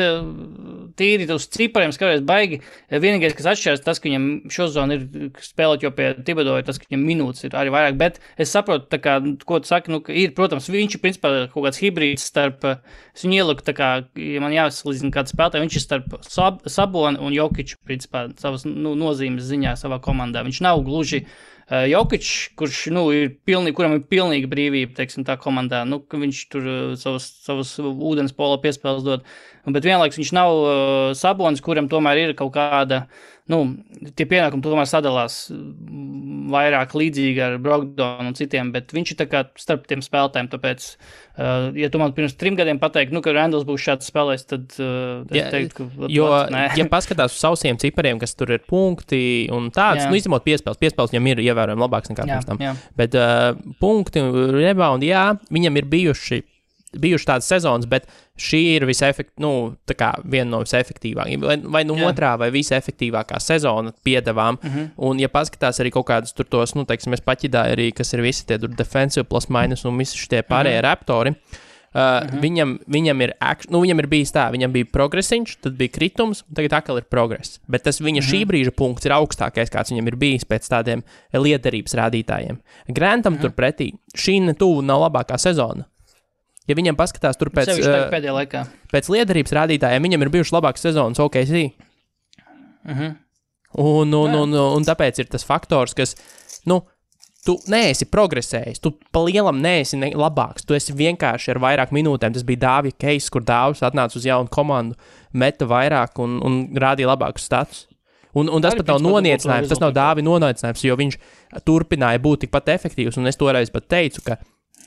tīri uz cipariem skaties baigi. Vienīgais, kas atšķiras, tas, ka viņam šo zonu ir spēlēt, jo pie Thibodeau tas, ka viņam minūtes ir arī vairāk, bet es saprotu, tā kā, ko tu saki, ir, protams, viņš ir principā kaut kāds hibrīds starp, es viņu ieliku, tā kā, ja man jāsalīdzina kāds spēlētāji, viņš ir starp Sabonu un Jokiču, principā, savas, nozīmes ziņā savā komandā. Viņš nav gluži Jokičs, kurš, kuram ir pilnīga brīvība, teiksim, tā komandā, ka viņš tur savus ūdens pola piespēles dod, bet vienlaiks viņš nav Sabonis, kuram tomēr ir kaut kāda, tie pienākumi tomēr sadalās vairāk līdzīgi ar Brogdonu un citiem, bet viņš ir tā kā starp tiem spēlētājiem, tāpēc, ja tu man pirms 3 gadiem pateiktu, ka Randls būs šāds spēlējs, tad es teiktu, ka... Ja paskatās uz sausiem cipariem, kas tur ir punkti un tāds, izņemot piespēles viņam ir ievērojami labāks nekā pirms tam, bet punkti, rebound, viņam ir bijuši tādas sezonas, bet šī ir viena no visefektīvākajām, vai otrā, vai visefektīvākā sezona piedevām, un ja paskatās arī kaut kādus tur tos, es paķidāju arī, kas ir visi tie defensive plus minus un visi šitie pārējie raptori, viņam ir bijis tā, viņam bija progresiņš, tad bija kritums, tagad atkal ir progress, bet tas viņa šī brīža punkts ir augstākais, kāds viņam ir bijis pēc tādiem liederības rādītājiem. Grantam turpretī, šī netuvu nav labākā sezona. Ja viņam paskatās tur pēc liederības rādītājiem, viņam ir bijušas labākas sezonas OKC. Un tāpēc ir tas faktors, kas, tu neesi progresējis, tu pa lielam neesi labāks, tu esi vienkārši ar vairāk minūtēm. Tas bija Dāvija Keis, kur Dāvis atnāca uz jaunu komandu, meta vairāk un rādīja labākus status. Un tas pat nav noniecinājums, tas nav Dāvija noniecinājums, jo viņš turpināja būt tikpat efektīvs, un es toreiz pat teicu, ka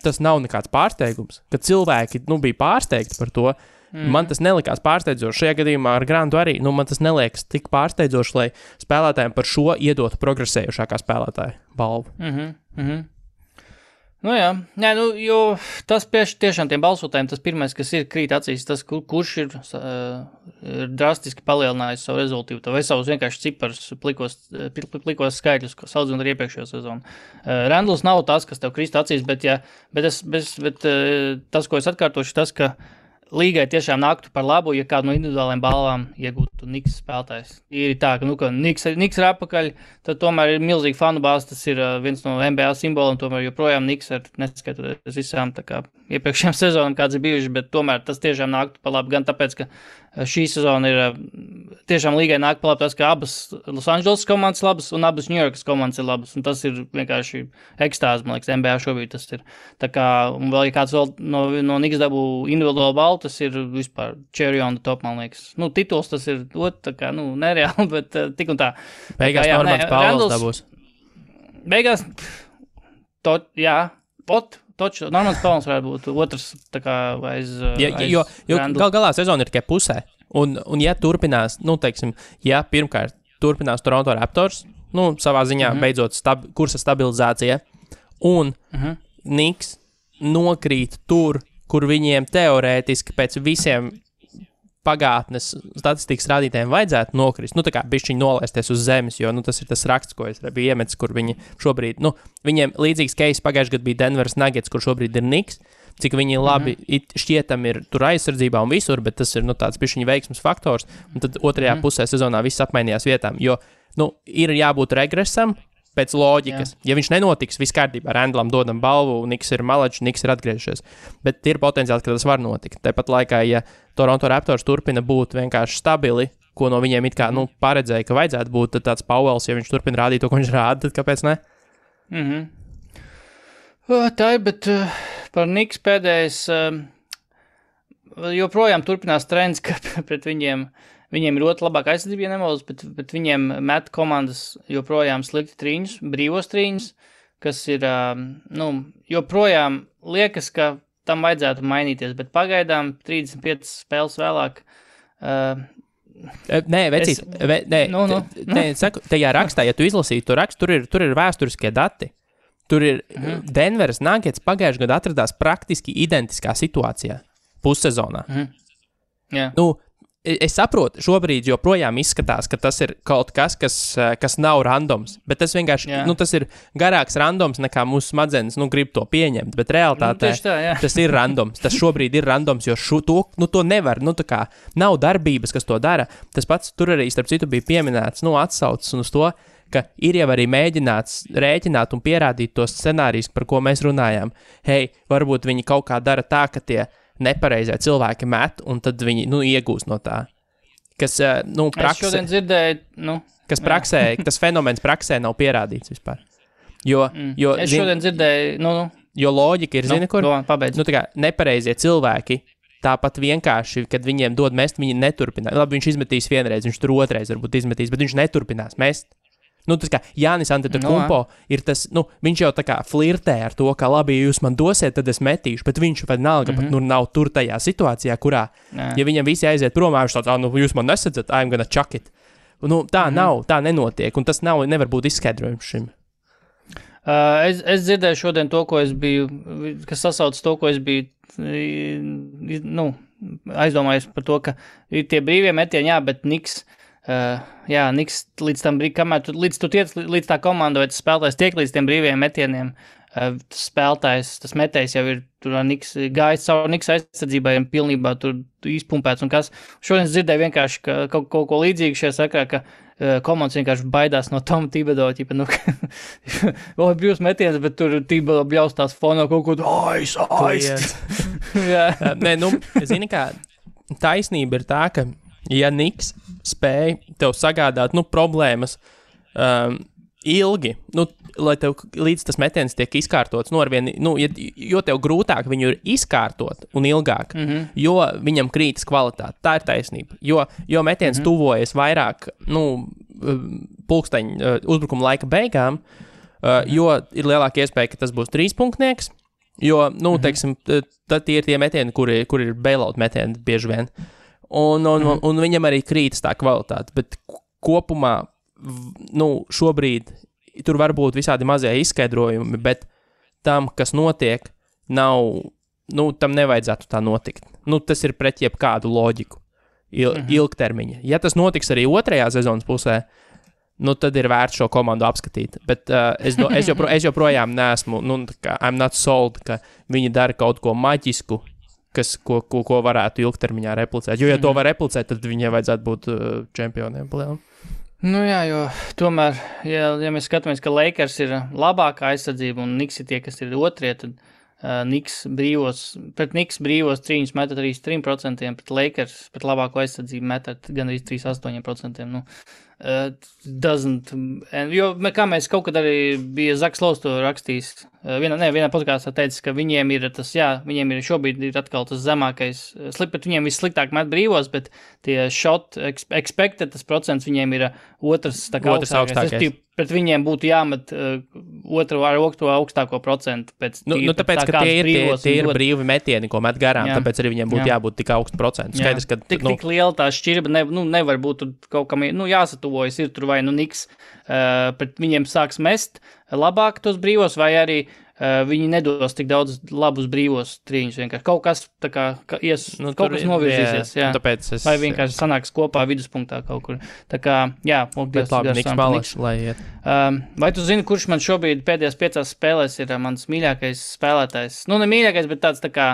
tas nav nekāds pārsteigums, ka cilvēki, bija pārsteigti par to. Man tas nelikās pārsteidzoši. Šajā gadījumā ar Grantu arī, man tas neliekas tik pārsteidzoši, lai spēlētājiem par šo iedotu progresējušākā spēlētāja balvu. Nu jā, jo tas tiešām tiem balsotājiem, tas pirmais, kas ir krīt acīs, tas, kurš ir drastiski palielinājis savu rezultīvu, vai savus vienkārši ciparus, plikos skaitļus, salīdzinot ar iepriekšējo sezonu. Randls nav tas, kas tev krīt acīs, bet tas, ko es atkārtošu, tas, ka līgai tiešām nāktu par labu, ja kādu no individuālajiem balvām iegūtu Niks spēlētājs. Ir tā, ka Niks ir apakaļ, tad tomēr ir milzīgi fanu bāze, tas ir viens no NBA simboliem, tomēr joprojām Niks ar neskatoties visām tā kā iepriekšējām sezonām, kāds ir bijuši, bet tomēr tas tiešām nāktu par labu, gan tāpēc, ka šī sezona ir tiešām līgai nāk par labu tas, ka abas Los Angeles komandas labas un abas New Yorkas komandas ir labas, un tas ir vienkārši ekstāze, man liekas, NBA šobrīd tas ir. Tā kā, un vēl, ja kāds vēl no Niks dabū individuālo balvu, tas ir vispār cherry on the top, man liekas. Tituls tas ir tā kā, nereāli, bet tik un tā. Beigās Normans Pauls dabūs. Beigās, Normans Pauls varētu būt otrs, tā kā aiz jo galā sezona ir tikai pusē. Un ja turpinās, teiksim, ja pirmkārt turpinās Toronto Raptors, savā ziņā beidzot kursa stabilizācija, un Niks nokrīt tur, kur viņiem teorētiski pēc visiem pagātnes statistikas rādītājiem vajadzētu nokrist, tā kā bišķiņi nolaisties uz zemes, jo, tas ir tas raksts, ko es biju iemetis, kur viņi šobrīd, viņiem līdzīgs case pagājušajā gadā bija Denveras Nuggets, kur šobrīd ir Niks, cik viņi labi šķietam ir tur aizsardzībā un visur, bet tas ir, tāds bišķiņi veiksmes faktors, un tad otrajā pusē sezonā viss apmainījās vietām, jo, ir jābūt regresam, pēc loģikas. Jā. Ja viņš nenotiks, viss kārtībā, Randlam dodam balvu, Niks ir malačs, Niks ir atgriežies. Bet ir potenciāls, ka tas var notikt. Tāpat laikā, ja Toronto Raptors turpina būt vienkārši stabili, ko no viņiem it kā, paredzēja, ka vajadzētu būt, tad tāds Pauls, ja viņš turpina rādīt to, ko viņš rāda, tad kāpēc ne? Tā ir, bet par Niks pēdējais joprojām turpinās trends, ka pret viņiem ir ļoti labāka aizsardzība, ja nemaldos, bet viņiem met komandas joprojām slikti trīņus, brīvos trīņus, kas ir, joprojām liekas, ka tam vajadzētu mainīties, bet pagaidām 35 spēles vēlāk. Nē, vecīt, saku, tajā rakstā, ja tu izlasītu to rakstu, tur ir vēsturiskie dati. Tur ir Denveras Nuggets pagājušajā gadā atradās praktiski identiskā situācijā pussezonā. Jā. Es saprotu, šobrīd joprojām izskatās, ka tas ir kaut kas nav randoms, bet tas vienkārši, tas ir garāks randoms nekā mūsu smadzenes, grib to pieņemt, bet realitātē tas ir randoms, tas šobrīd ir randoms, jo to nevar, tā kā nav darbības, kas to dara. Tas pats tur arī, starp citu, bija pieminēts, atsaucas uz to, ka ir jau arī mēģināts rēķināt un pierādīt tos scenārijus, par ko mēs runājām. Hei, varbūt viņi kaut kā dara tā, ka tie nepareizie cilvēki met, un tad viņi, iegūst no tā. Kas, praksē... Es šodien dzirdēju, kas praksē, tas fenomens praksē nav pierādīts vispār. Jo, es šodien dzirdēju, jo loģika ir, kur? Pabeidz. Tā kā nepareizie cilvēki, tāpat vienkārši, kad viņiem dod mest, viņi neturpinās. Labi, viņš izmetīs vienreiz, viņš tur otrais varbūt izmetīs, bet viņš neturpinās mest. Tas kā Jānis Antetokounmpo ir tas, viņš jau tā kā flirtē ar to, ka labi, ja jūs man dosiet, tad es metīšu, bet viņš vienalga pat nav tur tajā situācijā, kurā, ja viņam visi aiziet prom, viņš tāds, jūs man nesadzat, I'm gonna chuck it. Tā nav, tā nenotiek, un tas nevar būt izskaidrojums šim. Es dzirdēju šodien to, ko es biju, kas sasauc to, ko es biju, aizdomājies par to, ka ir tie brīvie metieni, bet Niks, Niks līdz tam brīdim, kamēr līdz tu tiec līdz tā komanda vai tas spēlētājs tiek līdz tiem brīviem metieniem, tas spēlētājs, tas metējs jau ir tur Niks gājis savu Niks aizsardzībai un pilnībā tur izpumpēts un kas. Šodien dzirdēju vienkārši kaut ko līdzīgu šajā sakrā, ka komandas vienkārši baidās no Toma Thibodeau, brīvs metiens, bet tur Thibodeau bļaustās fonā kaut ko aiz. Nē, zini kā, taisnība ir tā, ka ja Niks spēja tev sagādāt, problēmas ilgi, lai tev līdz tas metiens tiek izkārtots, jo tev grūtāk viņu ir izkārtot un ilgāk, jo viņam krītas kvalitāte. Tā ir taisnība. Jo metiens tuvojas vairāk, pulksteņu uzbrukuma laika beigām, jo ir lielāka iespēja, ka tas būs 3-punktnieks, jo, teiksim, tad ir tie metieni, kur ir bailout metieni bieži vien. Un viņam arī krītas tā kvalitāte, bet kopumā šobrīd tur var būt visādi mazie izskaidrojumi, bet tam, kas notiek, tam nevajadzētu tā notikt. Tas ir pret jebkādu loģiku ilgtermiņa. Ja tas notiks arī otrajā sezonas pusē, tad ir vērts šo komandu apskatīt. Bet es joprojām neesmu, I'm not sold, ka viņi dara kaut ko maģisku, ko varētu ilgtermiņā replicēt. Jo, ja to var replicēt, tad viņiem vajadzētu būt čempioniem. Jā, jo tomēr, ja mēs skatāmies, ka Lakers ir labākā aizsardzība un Knicks ir tie, kas ir otrie, tad Knicks brīvos trīņus metat arī 3%, pret Lakers, pret labāko aizsardzību metat gan arī 3,8%. Jo, kā mēs kaut kad arī bija Zaks Lows to rakstījis, vienā podkāstā teica, ka viņiem ir viņiem ir šobrīd ir atkal tas zemākais, bet viņiem vissliktāk met brīvos, bet tie shot expected, tas procents viņiem ir otrs augstākais. Pret viņiem būtu jāmet otru augstāko procentu. Tāpēc, ka tie ir brīvi metieni, ko met garām, tāpēc arī viņiem būtu jābūt tik augstu procentu. Skaidrs, ka tik liela tā šķirba nevar būt kaut kam jāsatuvojas, ir tur vai Knicks, pret viņiem sāks mest labāk tos brīvos, vai arī viņi nedos tik daudz labus brīvos trīņus. Vienkārši kaut kas kaut kas novirzīsies. Vai vienkārši sanāks kopā viduspunktā kaut kur. Tā kā, Knicks malaši, lai iet. Vai tu zini, kurš man šobrīd pēdējās 5 spēlēs ir mans mīļākais spēlētājs? Ne mīļākais, bet tāds tā kā,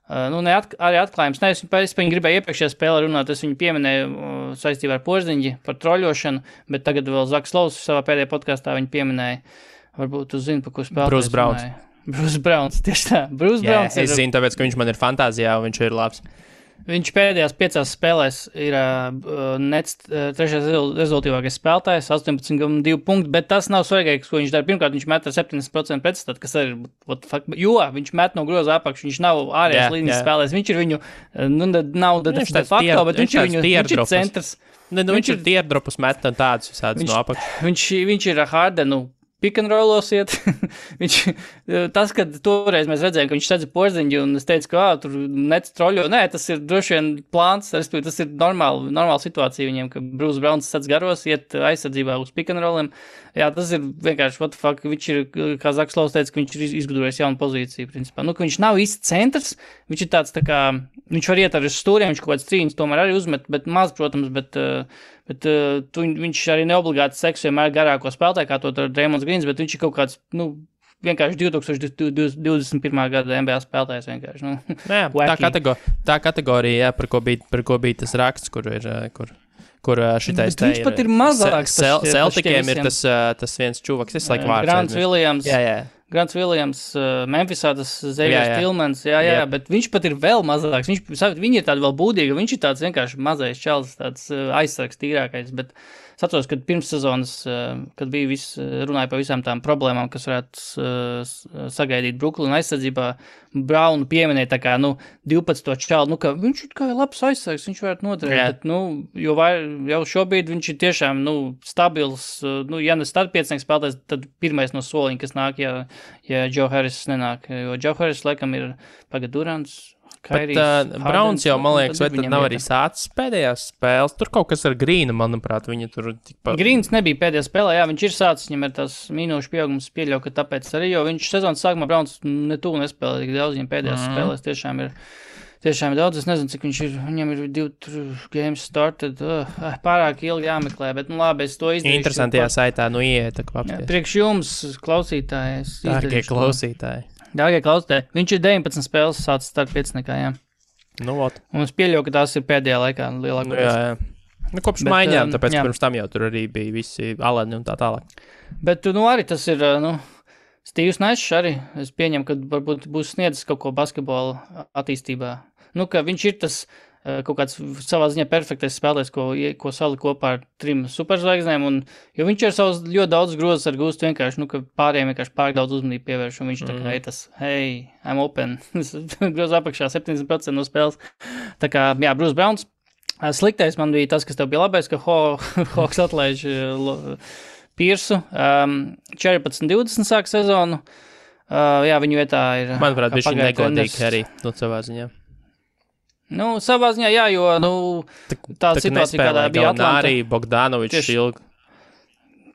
arī atklājums. Es viņu gribēju iepriekšējā spēlē runāt, es viņu pieminēju saistībā ar Porziņģi par troļošanu, bet tagad vēl Zaks Lows savā pēdējā podkāstā viņu pieminēja. Varbūt tu zini, par ko spēlētājs. Bruce Browns, tieši tā. Bruce Browns es zinu, tāpēc, ka viņš man ir fantāzijā un viņš ir labs. Viņš pēdējās 5 spēlēs ir Nets trešais rezultīvākais spēlētājs, 18,2 punkti, bet tas nav svarīgākais, ko viņš dara. Pirmkārt, viņš met ar 70% pretstat, kas ir, jo viņš met no groza apakšu, viņš nav ārējās līnijas spēlēs, viņš ir viņu, nav de facto, bet viņš ir centrs. Viņš ir teardropus met un tādus visādus no apakšu. Viņš ir Hardenu pick and rollos iet. Tas, kad toreiz mēs redzējām, ka viņš sedza Porziņģi, un es teicu, ka tur Nets troļo. Nē, tas ir droši vien plāns, tas ir normāla situācija viņiem, ka Bruce Browns sedz garos, iet aizsardzībā uz pick and rolliem. Jā, tas ir vienkārši, what the fuck, viņš ir, kā Zaks Lows teica, ka viņš ir izgudrojis jaunu pozīciju, principā. Ka viņš nav īsti centrs, viņš ir tāds tā kā, viņš var iet ar stūriem, viņš kaut kāds trīņus tomēr arī uzmet, bet maz, protams, bet viņš arī neobligāti seks vienmēr garāko spēlētāju, kā to ar Draymonds Greens, bet viņš ir kaut kāds, vienkārši 2021. gada NBA spēlētājs vienkārši. Tā kategorija, par ko bija tas raksts, kur šitais te ir. Viņš pat ir mazāks. Celtikiem ir tas viens čuvaks, es laiku vārds. Grants Williams. Grants Williams, Memphisā tas Xavier Tillmans, bet viņš pat ir vēl mazāks. Viņi ir tādi vēl būdīgi, viņš ir tāds vienkārši mazais čels, tāds aizsargs tīrākais, bet es atceros, kad pirms sezonas, kad bija runāja par visām tām problēmām, kas varētu sagaidīt Brooklynu aizsardzībā, Brownu pieminēja tā kā, 12 čalu, ka viņš ir kā labs aizsargs, viņš varētu noderēt, bet, jau šobrīd viņš ir tiešām, stabils, ja ne startpiecnieks spēlētājs, tad pirmais no soliņa, kas nāk, ja Joe Harris nenāk, jo Joe Harris laikam ir Durants, Bet Browns jau, man liekas, vai tad nav arī sācis pēdējās spēles? Tur kaut kas ar Grīnu, manuprāt, viņa tur tikpat... Grīns nebija pēdējā spēlē, viņš ir sācis, viņam ir tās minūšu pieaugums pieļauj, ka tāpēc arī, jo viņš sezonas sākumā Browns netūl nespēlē tik daudz, viņam pēdējās spēlēs tiešām ir daudz, es nezinu, cik viņš ir, viņam ir 2 games started, pārāk ilgi jāmeklē, bet labi, es to izdarīšu. Interesantajā saitā, ieiet, tā kā apsties. Priekš jums, klausītāji, Dārgie klausītāji, viņš ir 19 spēles sācis starp piecniekā, jā. Un es pieļauju, ka tās ir pēdējā laikā lielākais. Jā. Kopš maiņām, tāpēc pirms tam jau tur arī bija visi aleni un tā tālāk. Bet, arī tas ir, Steve's Nash arī, es pieņemu, ka varbūt būs sniedzis kaut ko basketbola attīstībā. Ka viņš ir tas kaut kāds savā ziņā perfektais spēlēs, ko salika kopā ar 3 superzvaigznēm, jo viņš ir savus ļoti daudz grozes ar gūstu vienkārši, ka pārējiem vienkārši pārāk daudz uzmanību pievērš, un viņš tā kā ir tas, hey, I'm open, groza apakšā 70% no spēles. Tā kā, jā, Bruce Browns. Sliktais man bija tas, kas tev bija labais, ka Hawks atlaiž Piersu. 14-20 sāk sezonu. Jā, viņu vietā ir... Manuprāt, viņš ir negodīgi arī, savā ziņā. Savā ziņā, jā, jo, tā situācija, kādā bija Atlanta. Arī Bogdanovičs ilgi.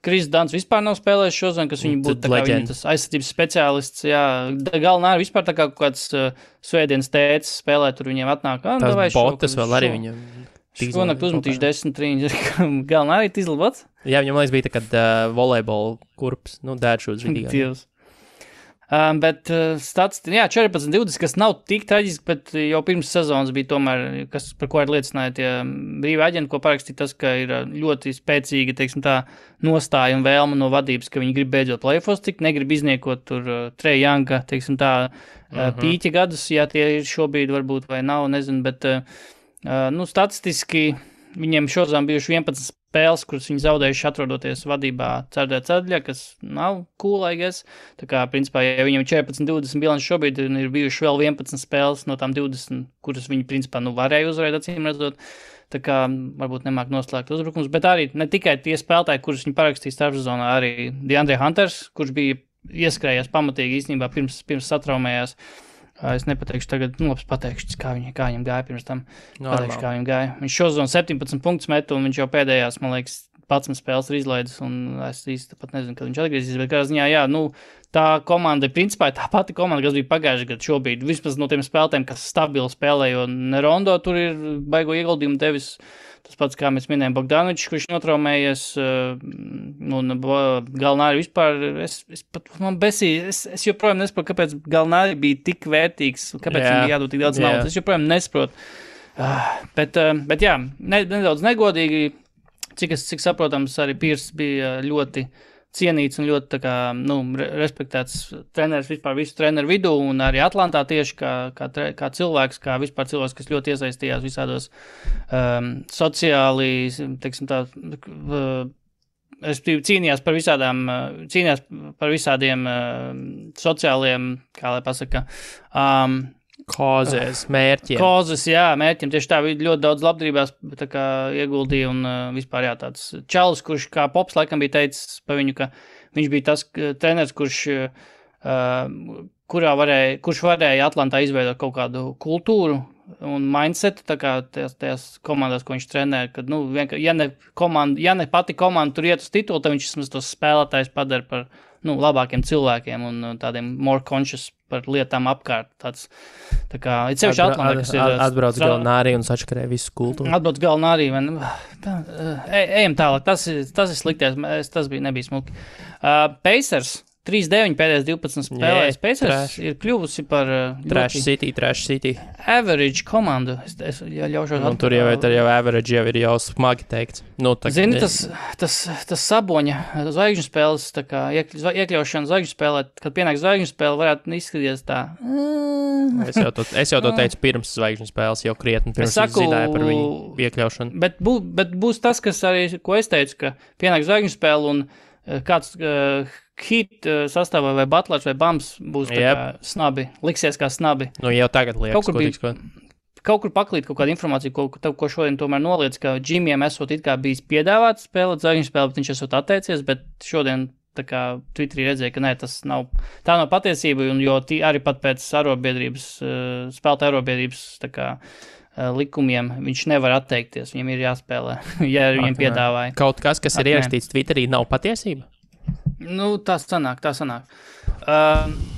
Kris Dans vispār nav spēlējis šodien, kas viņu būtu tā kā viņa tas aizsardzības speciālists, jā. Galvenā vispār tā kā kaut kāds svētdienas tēcis spēlē, tur viņiem atnāk. Tās botas vēl arī viņam. Šonakt uzmetīšu 10 trīņus. Galvenā arī izlabots? Jā, viņam liekas bija tā kā volejbola kurps, dēršūs vidīgā. Dievs. Bet statistika, jā, 14-20, kas nav tik traģiski, bet jau pirms sezonas bija tomēr, par ko arī liecināja tie brīvi aģenti, ko parakstīja tas, ka ir ļoti spēcīga, teiksim tā, nostāja un vēlma no vadības, ka viņi grib beidzot play-offs tikt, negrib izniekot tur Trae Younga, teiksim tā, pīķa gadus, ja tie ir šobrīd varbūt vai nav, nezinu, bet, statistiski viņiem šodien bijuši 11 spēles, kuras viņi zaudējuši atrodoties vadībā ceturtajā, kas nav cool, I guess. Tā kā, principā, ja viņiem 14-20 bilanci šobrīd ir bijuši vēl 11 spēles no tām 20, kuras viņi, principā, varēja uzvarēt, acīm redzot. Tā kā, varbūt nemāk noslēgt uzbrukums, bet arī ne tikai tie spēlētāji, kurus viņi parakstīja starpsezonā, arī DeAndre Hunters, kurš bija ieskrējies pamatīgi īstenībā pirms satraumējās. Es nepateikšu tagad, pateikšu, kā viņam gāja pirms tam. Pateikšu, kā viņam gāja. Viņš šozonu 17 punktus metu, un viņš jau pēdējās, man liekas, 11 spēles ir izlaidis, un es īsti pat nezinu, kad viņš atgriezīs, bet kādā ziņā, jā, tā komanda, principā, tā pati komanda, kas bija pagājuši gadu šobrīd, vismaz no tiem spēlētājiem, kas stabili spēlē, jo Nerondo tur ir baigo ieguldījumu devis. Tas pats, kā mēs minējām, Bogdanovičs, kurš notraumējies, Galnāri vispār, man besīja, es joprojām nesaprotu, kāpēc Galnāri bija tik vērtīgs, kāpēc viņam bija jādod tik daudz naudas, es joprojām nesaprotu. Bet jā, nedaudz negodīgi, cik saprotams, arī Pierce bija ļoti cienīts un ļoti, tā kā, respektēts treneris vispār visu treneru vidū un arī Atlantā tieši kā cilvēks, kā vispār cilvēks, kas ļoti iesaistījās visādos sociāli, teiksim tā, cīnījās par visādiem sociāliem, kā lai pasaka, Kozes, mērķiem. Kozes, jā, mērķiem. Tieši tā, ļoti daudz labdarībās tā kā ieguldīja un vispār, jā, tāds čalis, kurš kā Pops laikam bija teicis pa viņu, ka viņš bija tas treneris, kurš varēja Atlantā izveidot kaut kādu kultūru un mindsetu, tā kā tajās komandās, ko viņš trenē, kad, ja ne pati komanda tur iet uz titulu, tad viņš vismaz tos spēlētājs padara par, labākiem cilvēkiem un tādiem more conscious par lietām apkārt. Tāds, tā kā, ir sevišķi Atlantā, kas ir... Atbrauc Galnāri un sačakarē visu kultūru. Atbrauc Galnāri, ejam tālāk, tas ir slikties, tas nebija smuki. Pacers 3-9 pēdējais 12 spēlēs. Pacers ir kļuvusi par Trash City. Average komandu. Es ļaušos un tur jau average jau ir jau smagi teikts. Zini, tas Saboņa zvaigžņu spēles, tā kā iekļaušana zvaigžņu spēlē, kad pienāk zvaigžņu spēle, varētu izskatīties tā. Es jau to teicu pirms zvaigžņu spēles, jau krietni pirms es zināju par viņu iekļaušanu. Bet būs tas, kas arī, ko es teicu, ka pienāk zvaigžņu spēle un kāds Heat sastāvā vai Butlers vai Bams būs tā kā snabi, liksies kā snabi. Jau tagad liekas, kaut kur paklīt kaut kādu informāciju, ko šodien tomēr noliec, ka Džimijam esot it kā bijis piedāvāts spēlēt zvaigžņu spēli, bet viņš esot atteicies, bet šodien tā kā Twitterī redzēja, ka tā nav patiesība, un jo arī pat pēc spēlētāju arobiedrības tā kā likumiem viņš nevar atteikties, viņam ir jāspēlē, ja viņam piedāvāja. Kaut kas ir ierakstīts Twitterī, nav patiesība? Tā sanāk.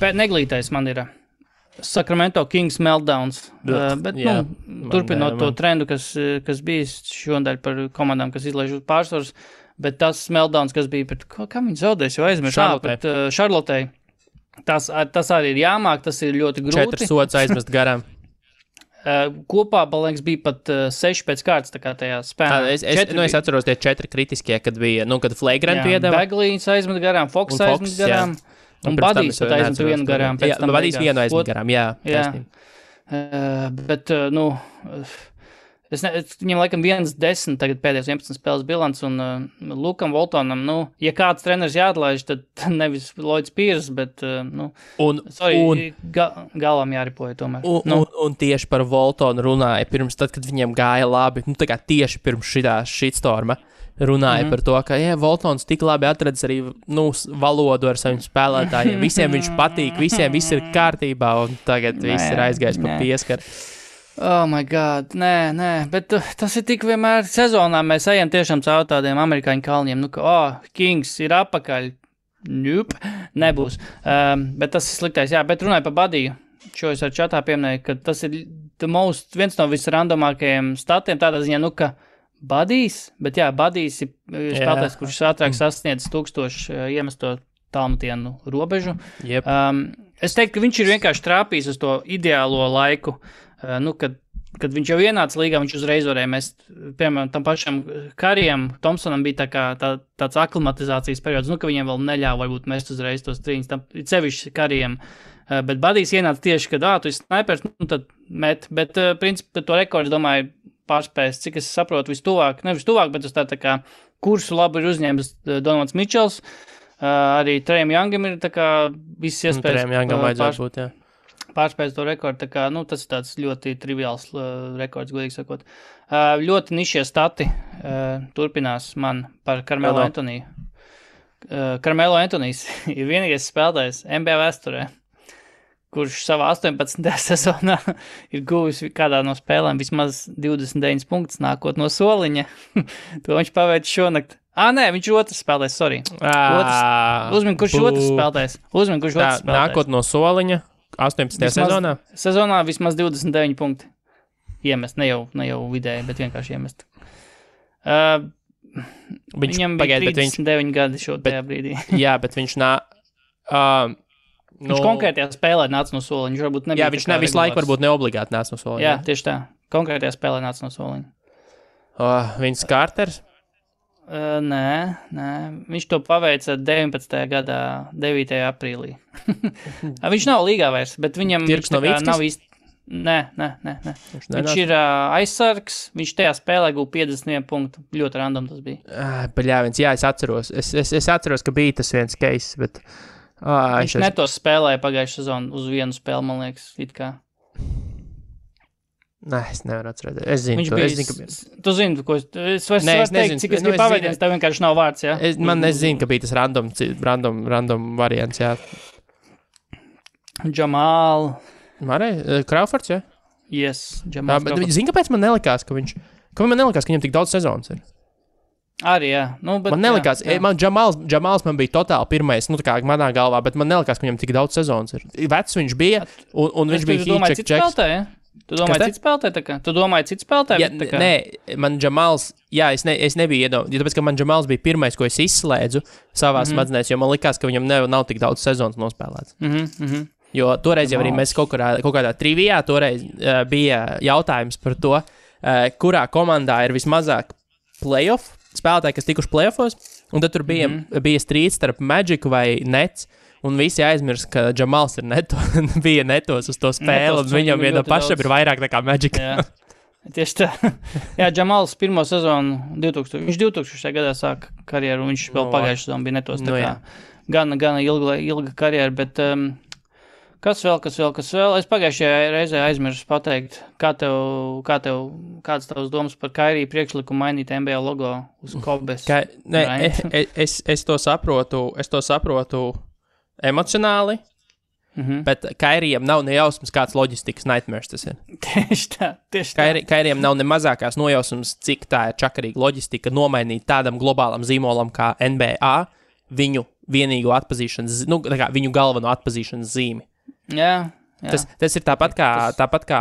Neglītais man ir Sacramento Kings meltdowns, bet, turpinot to trendu, kas bijis šodien par komandām, kas izlaiž uz pārsvaras, bet tas meltdowns, kas bija pret, kā viņi zaudēs, jo aizmirst, pret Charlottei, tas arī ir jāmāk, tas ir ļoti grūti. 4 sods aizmest garām. Kopā, man liekas, bija pat 6 pēc kārtas, tā kā tajā spēlē. Es atceros tie 4 kritiskie, kad bija, kad Flagrant piedeva. Baglīns aizmet garām, Fox aizmet garām, un Badijs pat aizmet vienu garām. Badijs vienu aizmet garām, jā. Bet, Viņam laikam 1-10 tagad pēdējos 11 spēles bilants, un Lukam Voltonam, ja kāds treneris jāatlaiž, tad nevis Lloyds Pierce, bet, galvam jāripoja tomēr. Un tieši par Voltonu runāja pirms tad, kad viņiem gāja labi, tā kā tieši pirms šitā shitstorma runāja par to, ka, Voltons tik labi atradis arī, valodu ar saviem spēlētājiem, visiem viņš patīk, visiem viss ir kārtībā, un tagad viss ir aizgājis pa pieskaru. Oh my God, nē, bet tas ir tik vienmēr sezonā, mēs ejam tiešām caur tādiem amerikāņu kalniem, Kings ir apakaļ, nebūs, bet tas ir sliktais, bet runāju par Badiju, šo es ar čatā pieminēju, ka tas ir viens no visrandomākajiem statiem, tādā ziņā, ka Badijs, bet Badijs ir spēlētājs, kurš ātrāk sasniedz 1000 iemesto tālmetienu robežu. Yep. Es teiktu, ka viņš ir vienkārši trāpījis uz to ideālo laiku, kad viņš jau ienāca līgā, viņš uzreiz varēja mest, piemēram, tam pašam Karijam, Thompsonam bija tāds aklimatizācijas periods, ka viņiem vēl neļāva varbūt mest uzreiz tos trīņus, tam sevišķi Karijam, bet Badijs ienāca tieši, kad, tu esi snipers, tad met, bet, principā, to rekordu, domāju, pārspējas, cik es saprotu, nevis tuvāk, bet uz tā kā kursu labi ir uzņēmis Donovans Mičels, arī Trejam Youngam ir tā kā viss iespējas. Trejam Youngam vajadzētu būt, pārspējas to rekordu, tā kā, tas ir tāds ļoti triviāls rekords, godīgi sakot. Ļoti nišie stati turpinās man par Carmelo Antoniju. Carmelo Antonijs ir vienīgais spēlētājs NBA vēsturē, kurš savā 18. sezonā ir guvis kādā no spēlēm vismaz 29 punktus nākot no soliņa. To viņš paveic šonakt. Nē, viņš ir otrs spēlētājs, sorry. Uzmin, kurš otrs spēlētājs. Nākot no soliņa. 18. sezonā? Sezonā vismaz 29 punkti iemest, ne jau vidēji, bet vienkārši iemest. Viņam bija 39 gadi tajā brīdī. Jā, bet viņš viņš konkrētajā spēlē nāca no soliņa. Viņš varbūt nebija viņš visu laiku varbūt neobligāti nāca no soliņa. Jā, tieši tā. Konkrētajā spēlē nāca no soliņa. Viņš Carters? Nē, viņš to paveica 19. gadā 9. aprīlī. Viņš nav līgā vairs, bet viņam nav īsti... Nē. Viņš ir aizsargs, viņš tajā spēlē guva 51 punktu. Ļoti random tas bija. Es atceros. Es atceros, ka bija tas viens case, bet... viņš netos spēlēja pagājušajā sezonu uz vienu spēli, man liekas, it kā. Nē, es nevaru atcerēties. Es zinu, Tu zini, ko es vairs teikt, cik es gribu paveidies, tev vienkārši nav vārds, jā? Es zinu, ka bija tas random variants, jā. Jamal. Crawfords, jā? Yes, Jamal Crawfords. Zini, kāpēc man nelikās, ka viņam tik daudz sezonas ir? Arī, jā. Man nelikās, Jamals man bija totāli pirmais, tā kā manā galvā, bet man nelikās, ka viņam tik daudz sezonas ir. Vecs viņš bija, un viņš bija Heat-check. Tu domāji citu spēlētāju? Nē, man Jamals, es nebiju iedomājis, tāpēc, ka man Jamals bija pirmais, ko es izslēdzu savās smadzenēs, jo man likās, ka viņam nav tik daudz sezonas nospēlēts. Jo toreiz jau arī mēs kaut kādā trivijā, toreiz bija jautājums par to, kurā komandā ir vismazāk playoff spēlētāji, kas tikuši playoffos, un tad tur bija strīds starp Magic vai Nets, un visi aizmirst, ka Jamals bija netos uz to spēli, un viņam viena pašam ir vairāk nekā Magic. Jā, tieši tā. Jā, Jamals pirmo sezonu viņš 2000. gadā sāka karjeru, un viņš vēl pagājušajā sezonu bija netos. Gana ilga karjera, bet kas vēl? Es pagājušajā reizē aizmirsu pateikt, kāds tavs domas par Kairiju priekšlikumu mainīt NBA logo uz Kobes? Es to saprotu emocionāli, bet Kairijam nav nejausmas, kāds loģistikas nightmares tas ir. Tieši tā. Kairijam nav ne mazākās nojausmas, cik tā ir čakarīga loģistika nomainīt tādam globālam zīmolam kā NBA viņu vienīgo atpazīšanas, viņu galveno atpazīšanas zīmi. Jā. Tas ir tāpat kā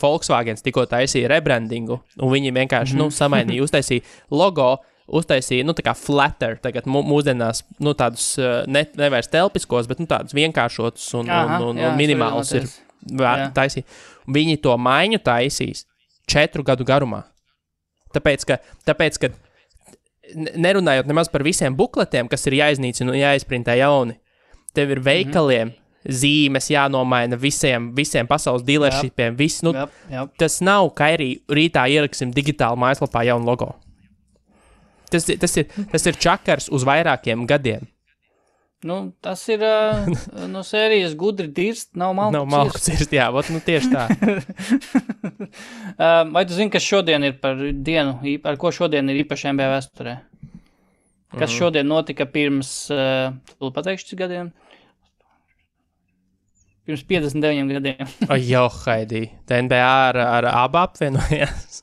Volkswagens tikko taisīja rebrandingu, un viņi vienkārši samainīja, uztaisīja logo, uztaisīja, tā kā flatter, tagad mūsdienās, tādus nevairs telpiskos, bet, tādus vienkāršotus un minimālus ir taisīja. Viņi to maiņu taisīs 4 gadu garumā. Tāpēc, ka nerunājot nemaz par visiem bukletiem, kas ir jāiznīcina un jāizprintē jauni, tev ir veikaliem zīmes jānomaina visiem pasaules dealershipiem. Tas nav, ka arī rītā ieliksim digitāli mājaslapā jaunu logo. Tas ir čakars uz vairākiem gadiem. Nu, tas ir no sērijas gudri dirst, nav malku cirst. Jā, tieši tā. Vai tu zini, kas šodien ir par dienu, ar ko šodien ir īpaši NBA vēsturē? Kas šodien notika pirms, tu pateikšu, cik gadiem? Pirms 59 gadiem. Jo, Haidī, tā NBA ar abu apvienojās?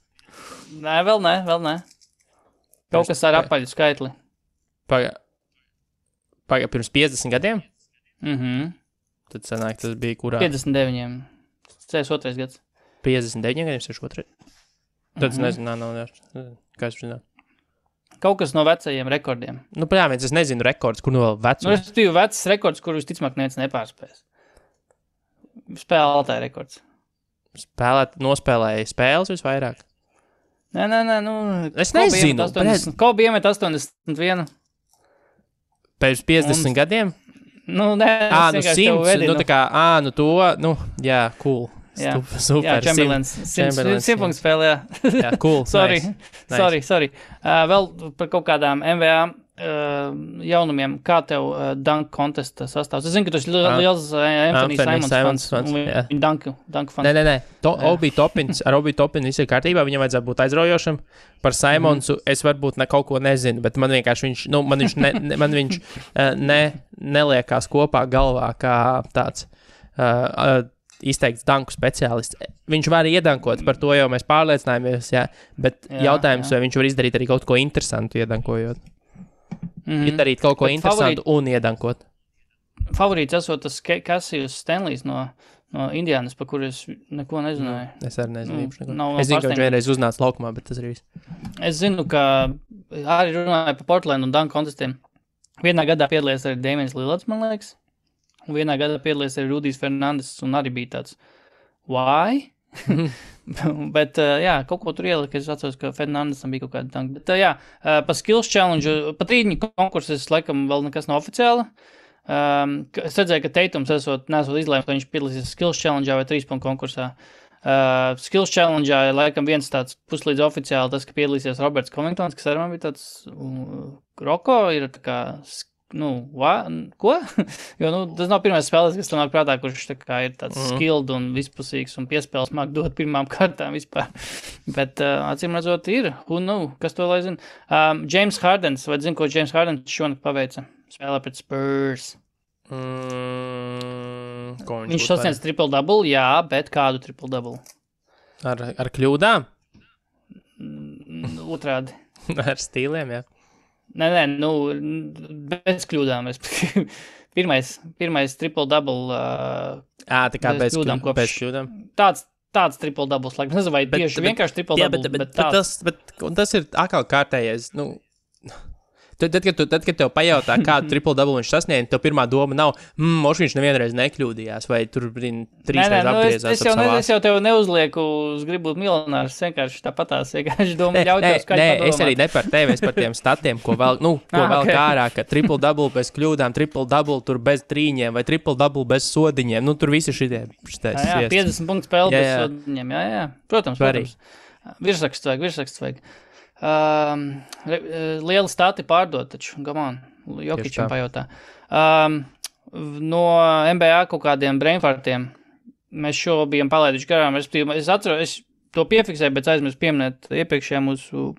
Nē, vēl nē. Kaut kas ar apaļu skaitli. Pirms 50 gadiem? Tad sanāk, tas bija kurā? 59. 62. gads. 59 gadiem, 62. Tad es nezinu, kā es zinu. Kaut kas no vecajiem rekordiem. Nu, prāvien, es nezinu rekords, kur no vēl vecums. Nu, es biju vecs rekords, kur visticamāk neviens nepārspēs. Spēlētāja rekords. Nospēlēja spēles visvairāk? Nē, es nezinu. Kobe iemet 81. Pēc 50 gadiem? Nu, nē, es 100, jā, cool. Jā, super. Jā, Chamberlains. 100 punktu spēlē, jā. Jā, cool. Sorry. Nice. Vēl par kaut kādām NBA jaunumiem, kā tev dunk contesta sastāvs? Es zinu, ka tu esi liels Anthony Simons fans. Viņa dunk fans. Nē. Obi Toppins viss ir kārtībā, viņam vajadzētu būt aizraujošam. Par Simonsu es varbūt kaut ko nezinu, bet man vienkārši viņš neliekās kopā galvā kā tāds izteikts danku speciālists. Viņš var iedankot, par to jau mēs pārliecinājāmies, bet jautājums, vai viņš var izdarīt arī kaut ko interesantu iedankojot. Darīt kaut ko interesantu un iedankot. Favorīts esot tas Cassius Stanleys no Indiānas, par kuru es neko nezināju. Es arī nezinu. Es zinu, ka viņš vienreiz uznāca laukumā, bet tas arī viss. Es zinu, ka arī runāja par Portland un dunk kontestiem. Vienā gadā piedalījās arī Damians Lillards, man liekas. Un vienā gadā piedalījās arī Rudijs Fernandes un arī bija tāds why? Bet, kaut ko tur ielika, es atceros, ka Fernandesam bija kaut kāda tanka. Bet, pa skills challenge, pa trīņu konkurses, laikam, vēl nekas nav oficiāli. Es redzēju, ka Teitums nesot izlēmt, ka viņš piedalīsies skills challenge vai 3-punktu konkursā. Skills challenge, laikam, viens tāds puslīdz oficiāli, tas, ka piedalīsies Roberts Covingtons, kas arī man bija tāds Roko, ir tā kā ko? Jo, tas nav pirmais spēlēs, kas tam nāk prātā, kurš tā kā ir tāds skilled un vispusīgs un piespēles māk dot pirmām kārtām vispār. Bet, acīm redzot, ir. Kas to lai zina? James Hardens, vai zinu, ko James Hardens šonakt paveica? Spēlē pret Spurs. Viņš sasniedz triple-double, jā, bet kādu triple-double? Ar kļūdām? Otrādi. Ar stīliem, jā. Nē, bez kļūdām. Pirmais triple-double. Tā kā bez kļūdām. Tāds triple-doubles, laikam. Nezinu, vai tieši vienkārši triple-double, bet tāds. Tas ir atkal kārtējais, Tad, kad tev pajautā, kādu triple-double viņš sasniedz, tev pirmā doma nav, viņš nevienreiz nekļūdījās, vai tur trīsreiz apgriezās. Es jau tev neuzlieku uz gribu būt miljonārs, vienkārši tāpatās, vienkārši doma ļautās, kā padomāt. Es arī ne par tevi, es par tiem statiem, ko vēl kārā, ka triple-double bez kļūdām, triple-double tur bez trīņiem, vai triple-double bez sodiņiem, tur visi šitie. Jā, 50 punktu spēle bez sodiņiem, jā. Protams. Virsraksts vajag. Lieli stati pārdot, taču, gamon, Jokičam pajautā. No NBA kaut kādiem brainfartiem mēs šo bijām palaiduši garām. Es atceros, es to piefiksēju, bet aizmirsu pieminēt iepriekšējā mūsu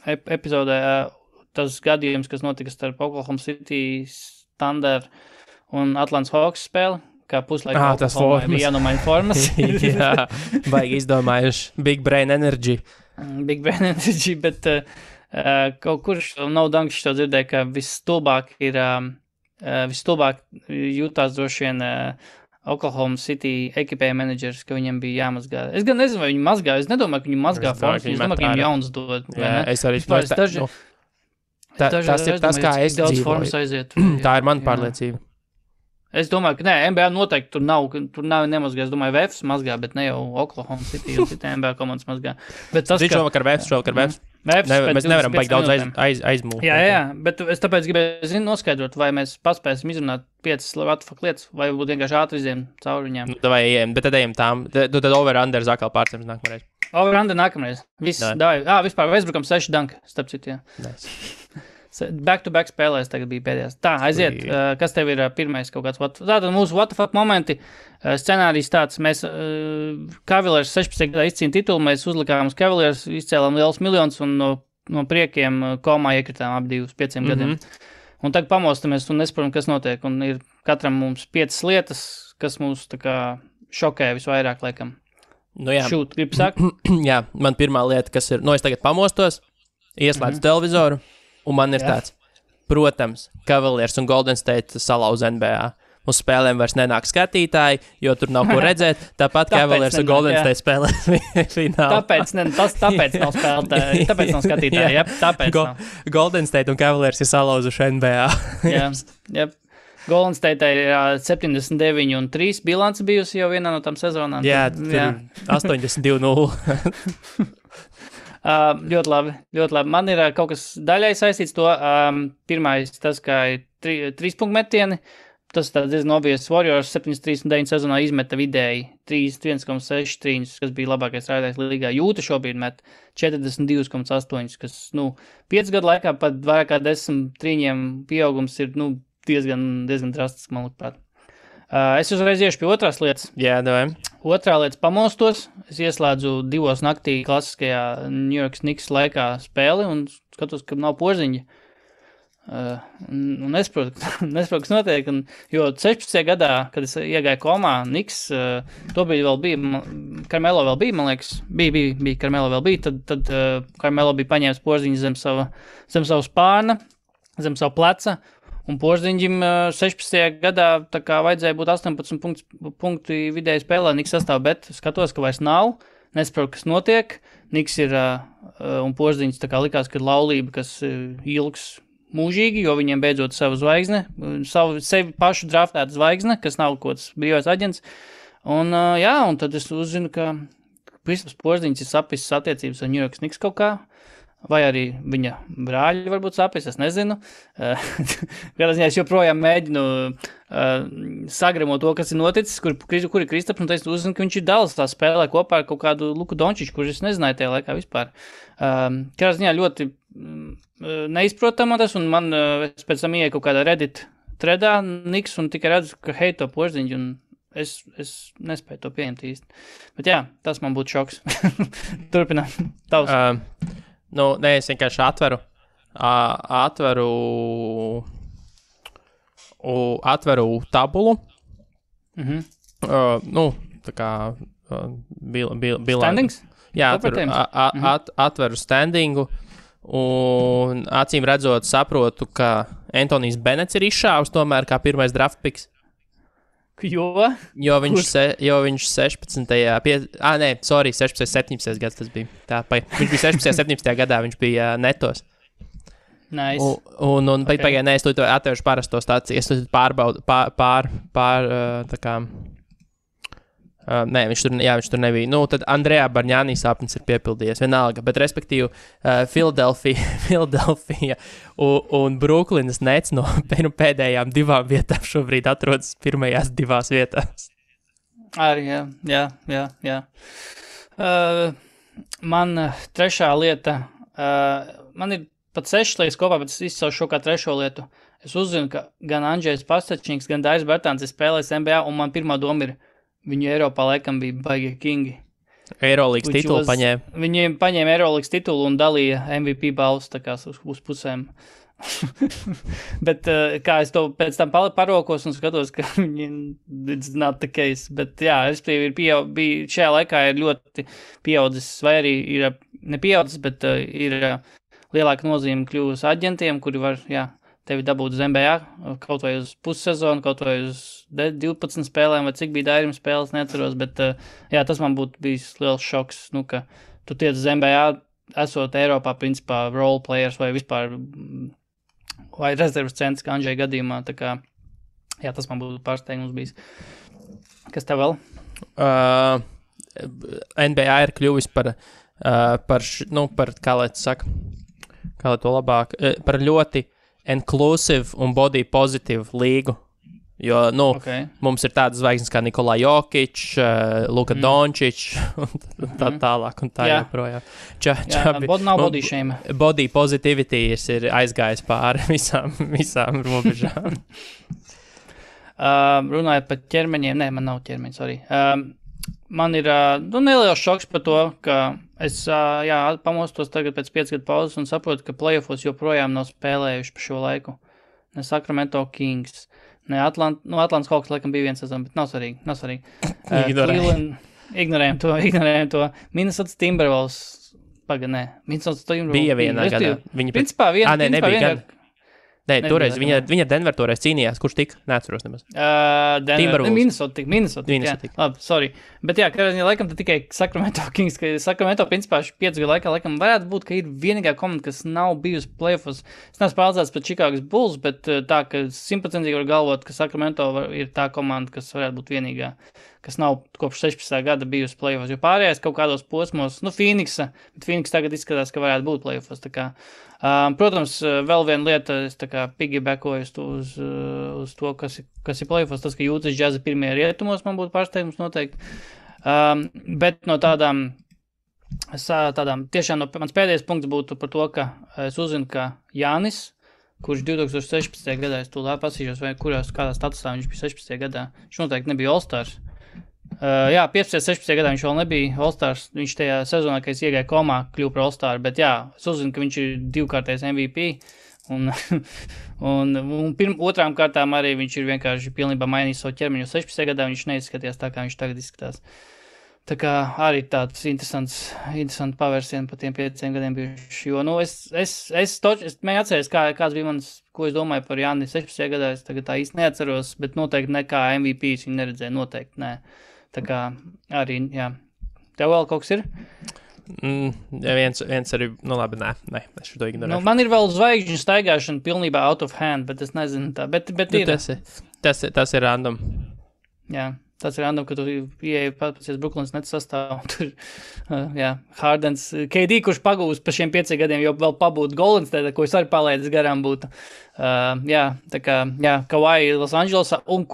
epizodē tas gadījums, kas notika starp Oklahoma City Thunder un Atlantas Hawks spēli, kā puslaika Oklahoma bija jānomaina formas. Jā, baigi izdomājuši Big Brain Energy. Bet kaut kurš nav danks to dzirdēja, ka visstulbāk jūtās droši vien Oklahoma City ekipēja menedžers, ka viņam bija jāmazgā. Es gan nezinu, vai viņi mazgā, es nedomāju, ka viņi mazgā formas, es domāju, ka viņiem jauns dod. Jā, es arī tas ir tas, kā es dzīvoju. Tā ir mana pārliecība. Es domāju, ka NBA noteikti tur nav nemazgā. Es domāju, VFs mazgā, bet ne jau Oklahoma City un citi NBA komandas mazgā. Bet tas, šovakar VFs. Mēs nevaram baigt daudz aizmūgt. Jā, bet es tāpēc gribēju noskaidrot, vai mēs paspēsim izrunāt 5 what lietas, vai būtu vienkārši ātri iziem cauri viņām. Vai ejam, bet tad ejam tām. Tad over-under atkal pārsteigums nākamreiz. Over-under nākamreiz. Viss, davai. Vispār Westbrookam 6 danki, starp citu, jā. Nice. Back-to-back spēlēs tagad bija pēdējās. Tā, aiziet. Kas tev ir pirmais kaut kāds? Tātad mūsu what the fuck momenti. Scenārijs tāds. Mēs Cavaliers 16 gadā izcīna titulu. Mēs uzlikām uz Cavaliers, izcēlām liels miljonus un no priekiem komā iekritām ap 2-5 gadiem. Un tagad pamostamies un nesaprotam, kas notiek. Un ir katram mums 5 lietas, kas mūs tā kā šokē visvairāk, laikam. Nu jā. Šūt, gribu sakt? Jā, man pirmā lieta, kas ir, es tagad pamostos, ieslēdzu televizoru. Un man ir tāds, protams, Cavaliers un Golden State salauz NBA. Uz spēlēm vairs nenāk skatītāji, jo tur nav ko redzēt. Tāpat Cavaliers un Golden State spēlē finālā. Tāpēc nav spēlētāji, tāpēc nav skatītāji. Jā, tāpēc nav. Golden State un Cavaliers ir salauzuši NBA. Jā. Golden State ir 79-3 bilance bijusi jau vienā no tām sezonām. Jā, 82-0. Ļoti labi. Man ir kaut kas daļai saistīts to. Pirmais, tas, kā ir 3 punktu metieni. Tas diezgan obvious. Warriors 73-9 sezonā izmeta vidēji 1,6 trīņus, kas bija labākais rādītājs līgā. Jūta šobrīd met 42,8, kas, 5 gadu laikā pat vairāk kā 10 trīņiem pieaugums ir, diezgan drastisks, man liekas. Es uzreiz iešu pie otrās lietas. Jā, davai. Otrā lieta pamosto's. Es ieslēdzu 2 naktī klasiskajā New York Knicks laikā spēli un skatos, ka nav porziņa. Un nesaprotu, kas notiek. Jo 16. gadā, kad es iegāju komā, Knicks, tobrīd vēl bija, Carmelo vēl bija, man liekas, bija Carmelo vēl bija, tad Carmelo bija paņēmis porziņu zem savu spārna, zem savu pleca. Un Porziņģim 16. gadā tā kā vajadzēja būt 18 punktu vidēji spēlē Niks sastāv, bet skatos, ka vairs nav, nesaprotu, kas notiek. Niks ir un Porziņģis tā kā likās, ka laulība, kas ilgs mūžīgi, jo viņiem beidzot savu zvaigzne, sevi pašu draftētu zvaigzne, kas nav kods brīvais aģents. Un tad es uzzinu, ka Kristaps Porziņģis ir sapisis attiecības ar New York Knicks kaut kā. Vai arī viņa brāļi varbūt sapis, es nezinu. Kādā ziņā es joprojām mēģinu sagramot to, kas ir noticis, kur ir Kristaps, un es uzzinu, ka viņš ir Dallas tā spēlē kopā ar kaut kādu Luku Dončiču, kurš es nezināju tajā laikā vispār. Kādā ziņā ļoti neizprotama tas, un man es pēc tam ieeju kaut kādā Reddit threadā Niks, un tikai redzu, ka heito Porziņģi, un es nespēju to pieņemt īsti. Bet jā, tas man būtu šoks. Turpinām. Tavs. Es vienkārši atveru tabulu. Tā kā Standings? Jā, atveru standingu. Un acīm redzot saprotu, ka Antonijs Benets ir izšāvis tomēr kā pirmais draft picks. Jo viņš 16. 17. gads tas bija. Viņš bija 16. 17. gadā, viņš bija netos. Nice. Un pagaidām, es to atvēršu parasto stāciju, es to pārbaudu, tā kā, viņš tur nebija. Tad Andrejā Barņānī sapnis ir piepildījies, vienalga, bet respektīvi Philadelphia un Brooklynas Nets no pēdējām 2 vietām šobrīd atrodas pirmajās 2 vietās. Arī, jā. Man trešā lieta, man ir pat 6 lietas kopā, bet es izcelšu šo kā trešo lietu. Es uzzinu, ka gan Andžejs Pastačniks, gan Dairis Bertāns ir spēlējis NBA, un man pirmā doma ir, viņu Eiropā laikam bija baigie kingi. Eurolīgas titulu paņēma. Viņi paņēma Eurolīgas titulu un dalīja MVP balvas tā kā uz pusēm. Bet kā es to pēc tam parokos un skatos, ka it's not the case. Bet jā, bija šajā laikā ir ļoti pieaudzis, vai arī ir nepieaudzis, bet ir lielāka nozīme kļuvusi aģentiem, kuri var, tevi dabūt uz NBA, kaut vai uz pussezonu, kaut vai uz 12 spēlēm, vai cik bija Dairim spēles, neatceros, bet tas man būtu bijis liels šoks, ka tu tiec uz NBA, esot Eiropā, principā, role players vai vispār, vai rezervas centrs, kā Andžeja gadījumā, tā kā, tas man būtu pārsteigums bijis. Kas tev vēl? NBA ir kļuvis par par kā lai to labāk, par ļoti inclusive un body positive līgu. Jo, mums ir tādas zvaigznes kā Nikola Jokic, Luka Dončić un tā tālāk un tā joprojām. Nav body shame. Body positivity ir aizgājis pāri visām robežām. Runājot par ķermeņiem, man nav ķermeņa, sorry. Man ir neliels šoks par to, ka es pamostos tagad pēc 5 gadu pauzes un saprotu, ka playoffos joprojām nav spēlējuši pa šo laiku. Ne Sacramento Kings. Ne, Atlantas Hawks laikam bija viens sezon, bet nav svarīgi. Ignorējam to. Minnesota Timberwolves, Minnesota Timberwolves. Bija vienā gadā. Principā vienā. Nebija gada. Nē, toreiz viņa Denver toreiz cīnījās, kurš tika? Neatceros nemaz. Minnesota. Labi, sorry. Bet laikam tad tikai Sacramento Kings, ka Sacramento principā 5 gadu laikā laikam varētu būt, ka ir vienīgā komanda, kas nav bijusi playoffs. Es neesmu pārliecināts par Chicago's Bulls, bet tā, ka 100% var galvot, ka Sacramento ir tā komanda, kas varētu būt vienīgā, kas nav kopš 16. gada bijusi playoffs. Jo pārējais kaut kādos posmos, Phoenix tagad izskatās, ka varētu būt playoffs. Tā kā protams, vēl viena lieta, es tā kā piggybackoju uz to, kas ir playoffs, tas, ka Jūtas Jazz pirmie rietumos man būtu pārsteigums noteikti. Bet no tādām tiešām mans pēdējais punkts būtu par to, ka es uzzinu, ka Jānis, kurš 2016. gadā, es tūlīt pasīšos, vai kādā statusā viņš bija 16. gadā, viņš noteikti nebija All-Stars. 15. 16. gadā viņš vēl nebija All-Stars, viņš tajā sezonā, kad es iegāju komā, kļuvu par All-Star, bet es uzzinu, ka viņš ir 2-kārtais MVP, un otrām kārtām arī viņš ir vienkārši pilnībā mainījis savu ķermeņu. 16. gadā viņš neizskatījās tā, kā viņš tagad izskatās. Tā kā arī tāds interesants pavērsiens pa tiem 5 gadiem bijuši, jo, es mēģinu atceries, kāds bija ko es domāju par Jāni 16. gadā, es tagad tā īsti neatceros, bet noteikti nekā MVP viņu neredzēju, noteikti nē. Tā kā arī, Tev vēl kaut kas ir? Viens arī, labi, nē, es šo ignorēju. Man ir vēl zvaigžņu staigāšana pilnībā out of hand, bet es nezinu tā, bet ir. Tas ir random. Jā, tas ir random, ka tu ieeji pasies Brooklyns Nets sastāv, tur, Hardens, KD, kurš pagūs pa šiem 5 gadiem, jo vēl pabūt Golden State, ko es arī palaidis garām būtu. Tā kā, Kawhi Los Angelesā, un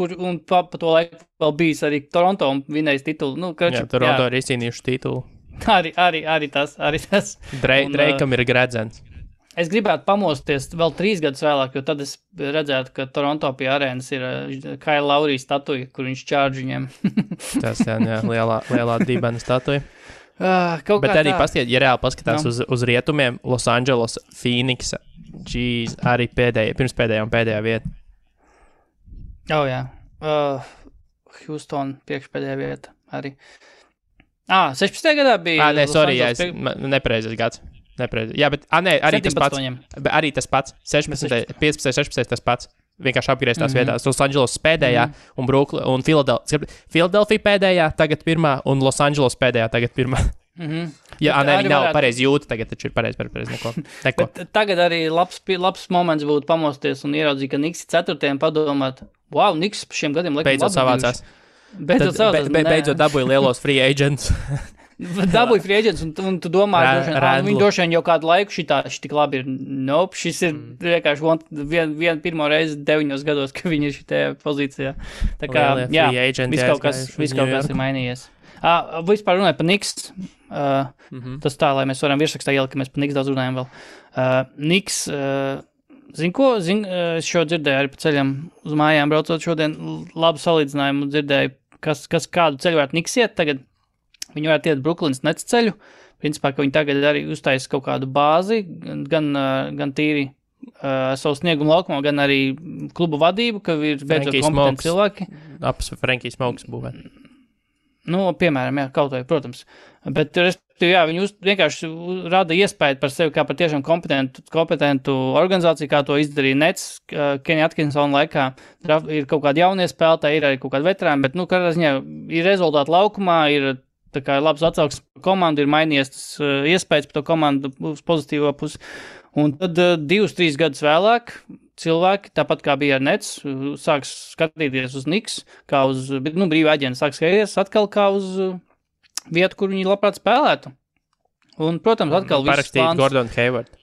pa to laiku vēl bijis arī Toronto un vinējis titulu. Toronto ir izcīnījuši titulu. Arī tas. Dreikam ir gredzens. Es gribētu pamosties vēl 3 gadus vēlāk, jo tad es redzētu, ka Toronto pie arēnas ir Kyle Lowry statuja, kur viņš čārģ viņiem. Tas, lielā dibena statuja. Bet arī ja reāli paskatās uz rietumiem, Los Angeles, Phoenix, arī pirms pēdējā vieta. Houston priekšpēdējā vieta arī. 16. gadā bija... nepareizais gads. Jā, bet arī 17. tas pats. Arī tas pats. 15, 16 tas pats. Vienkārši apgrieztās vietās. Los Angeles pēdējā un Philadelphia pēdējā, tagad pirmā, un Los Angeles pēdējā, tagad pirmā. Viņi nav pareizi jūta, tagad taču ir pareizi neko. Tagad arī labs moments būtu pamosties un ieraudzīt, ka Knicks ir 4. padomāt, Knicks pa šiem gadiem laikam beidzot savācās. Beidzot dabūja lielos free agents. Dabūja free agents, un tu domā, viņi droši vien jau kādu laiku šitī labi ir. Šis ir vienkārši pirmo reizi 9 gados, ka viņi ir šitajā pozīcijā. Tā kā, viss kaut kas ir mainījies. Vispār runāju par Knicks. Tas tā, lai mēs varam virsrakstā ielikt, ka mēs par Knicks daudz runājam vēl. Knicks, es šo dzirdēju arī pa ceļam uz mājām braucot šodien, labu salīdzinājumu dzirdēju, kas kādu ceļu varētu Knicks iet tagad. Viņi varētu iet Brooklyns Nets ceļu. Principā, ka viņi tagad arī uztaisa kaut kādu bāzi, gan tīri savu sniegumu laukumā, gan arī klubu vadību, ka ir beidzot kompetenti cilvēki. Frankie Smokes būvēt. Piemēram, kaut vai, protams. Bet, viņi vienkārši rada iespēju par sevi kā par tiešām kompetentu organizāciju, kā to izdarīja Nets, Kenny Atkinsona laikā. Ir kaut kādi jaunie spēlētāji, ir arī kaut kādi veterāni, bet, kādā ziņā ir rezultāti laukumā, ir tā kā labs atsauksmes par komandu, ir mainījies tas iespējas par to komandu uz pozitīvo pusi. Un tad 2-3 gadus vēlāk cilvēki, tāpat kā bija ar Nets, sāks skatīties uz Knicks, kā uz brīvā aģenta, sāks skatīties atkal kā uz vietu, kur viņi labprāt spēlētu. Un, protams, atkal viss parakstīt Gordon Hayward.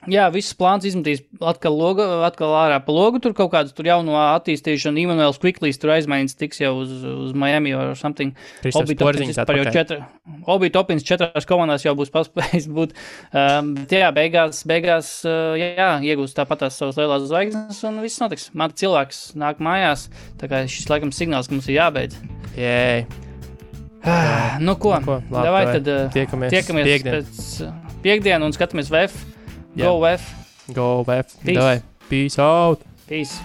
Jā, viss plāns izmetīs atkal ārā pa logu, tur kaut kāds tur jauno attīstīšanu, Immanuels Quickleys tur aizmainīts tiks jau uz Miami or something. Kristaps Porziņš atpakaļ. Obi Topins 4 komandās jau būs paspējis būt. Bet jā, beigās iegūst tāpatās savas lielās zvaigznes un viss notiks. Mata cilvēks nāk mājās, tā kā šis laikam signāls, ka mums ir jābeidz. Jē. Nu ko, davai tad tiekamies pēc piekdienu un skatāmies VF. Go VF. Go VF. Davai. Peace out. Peace.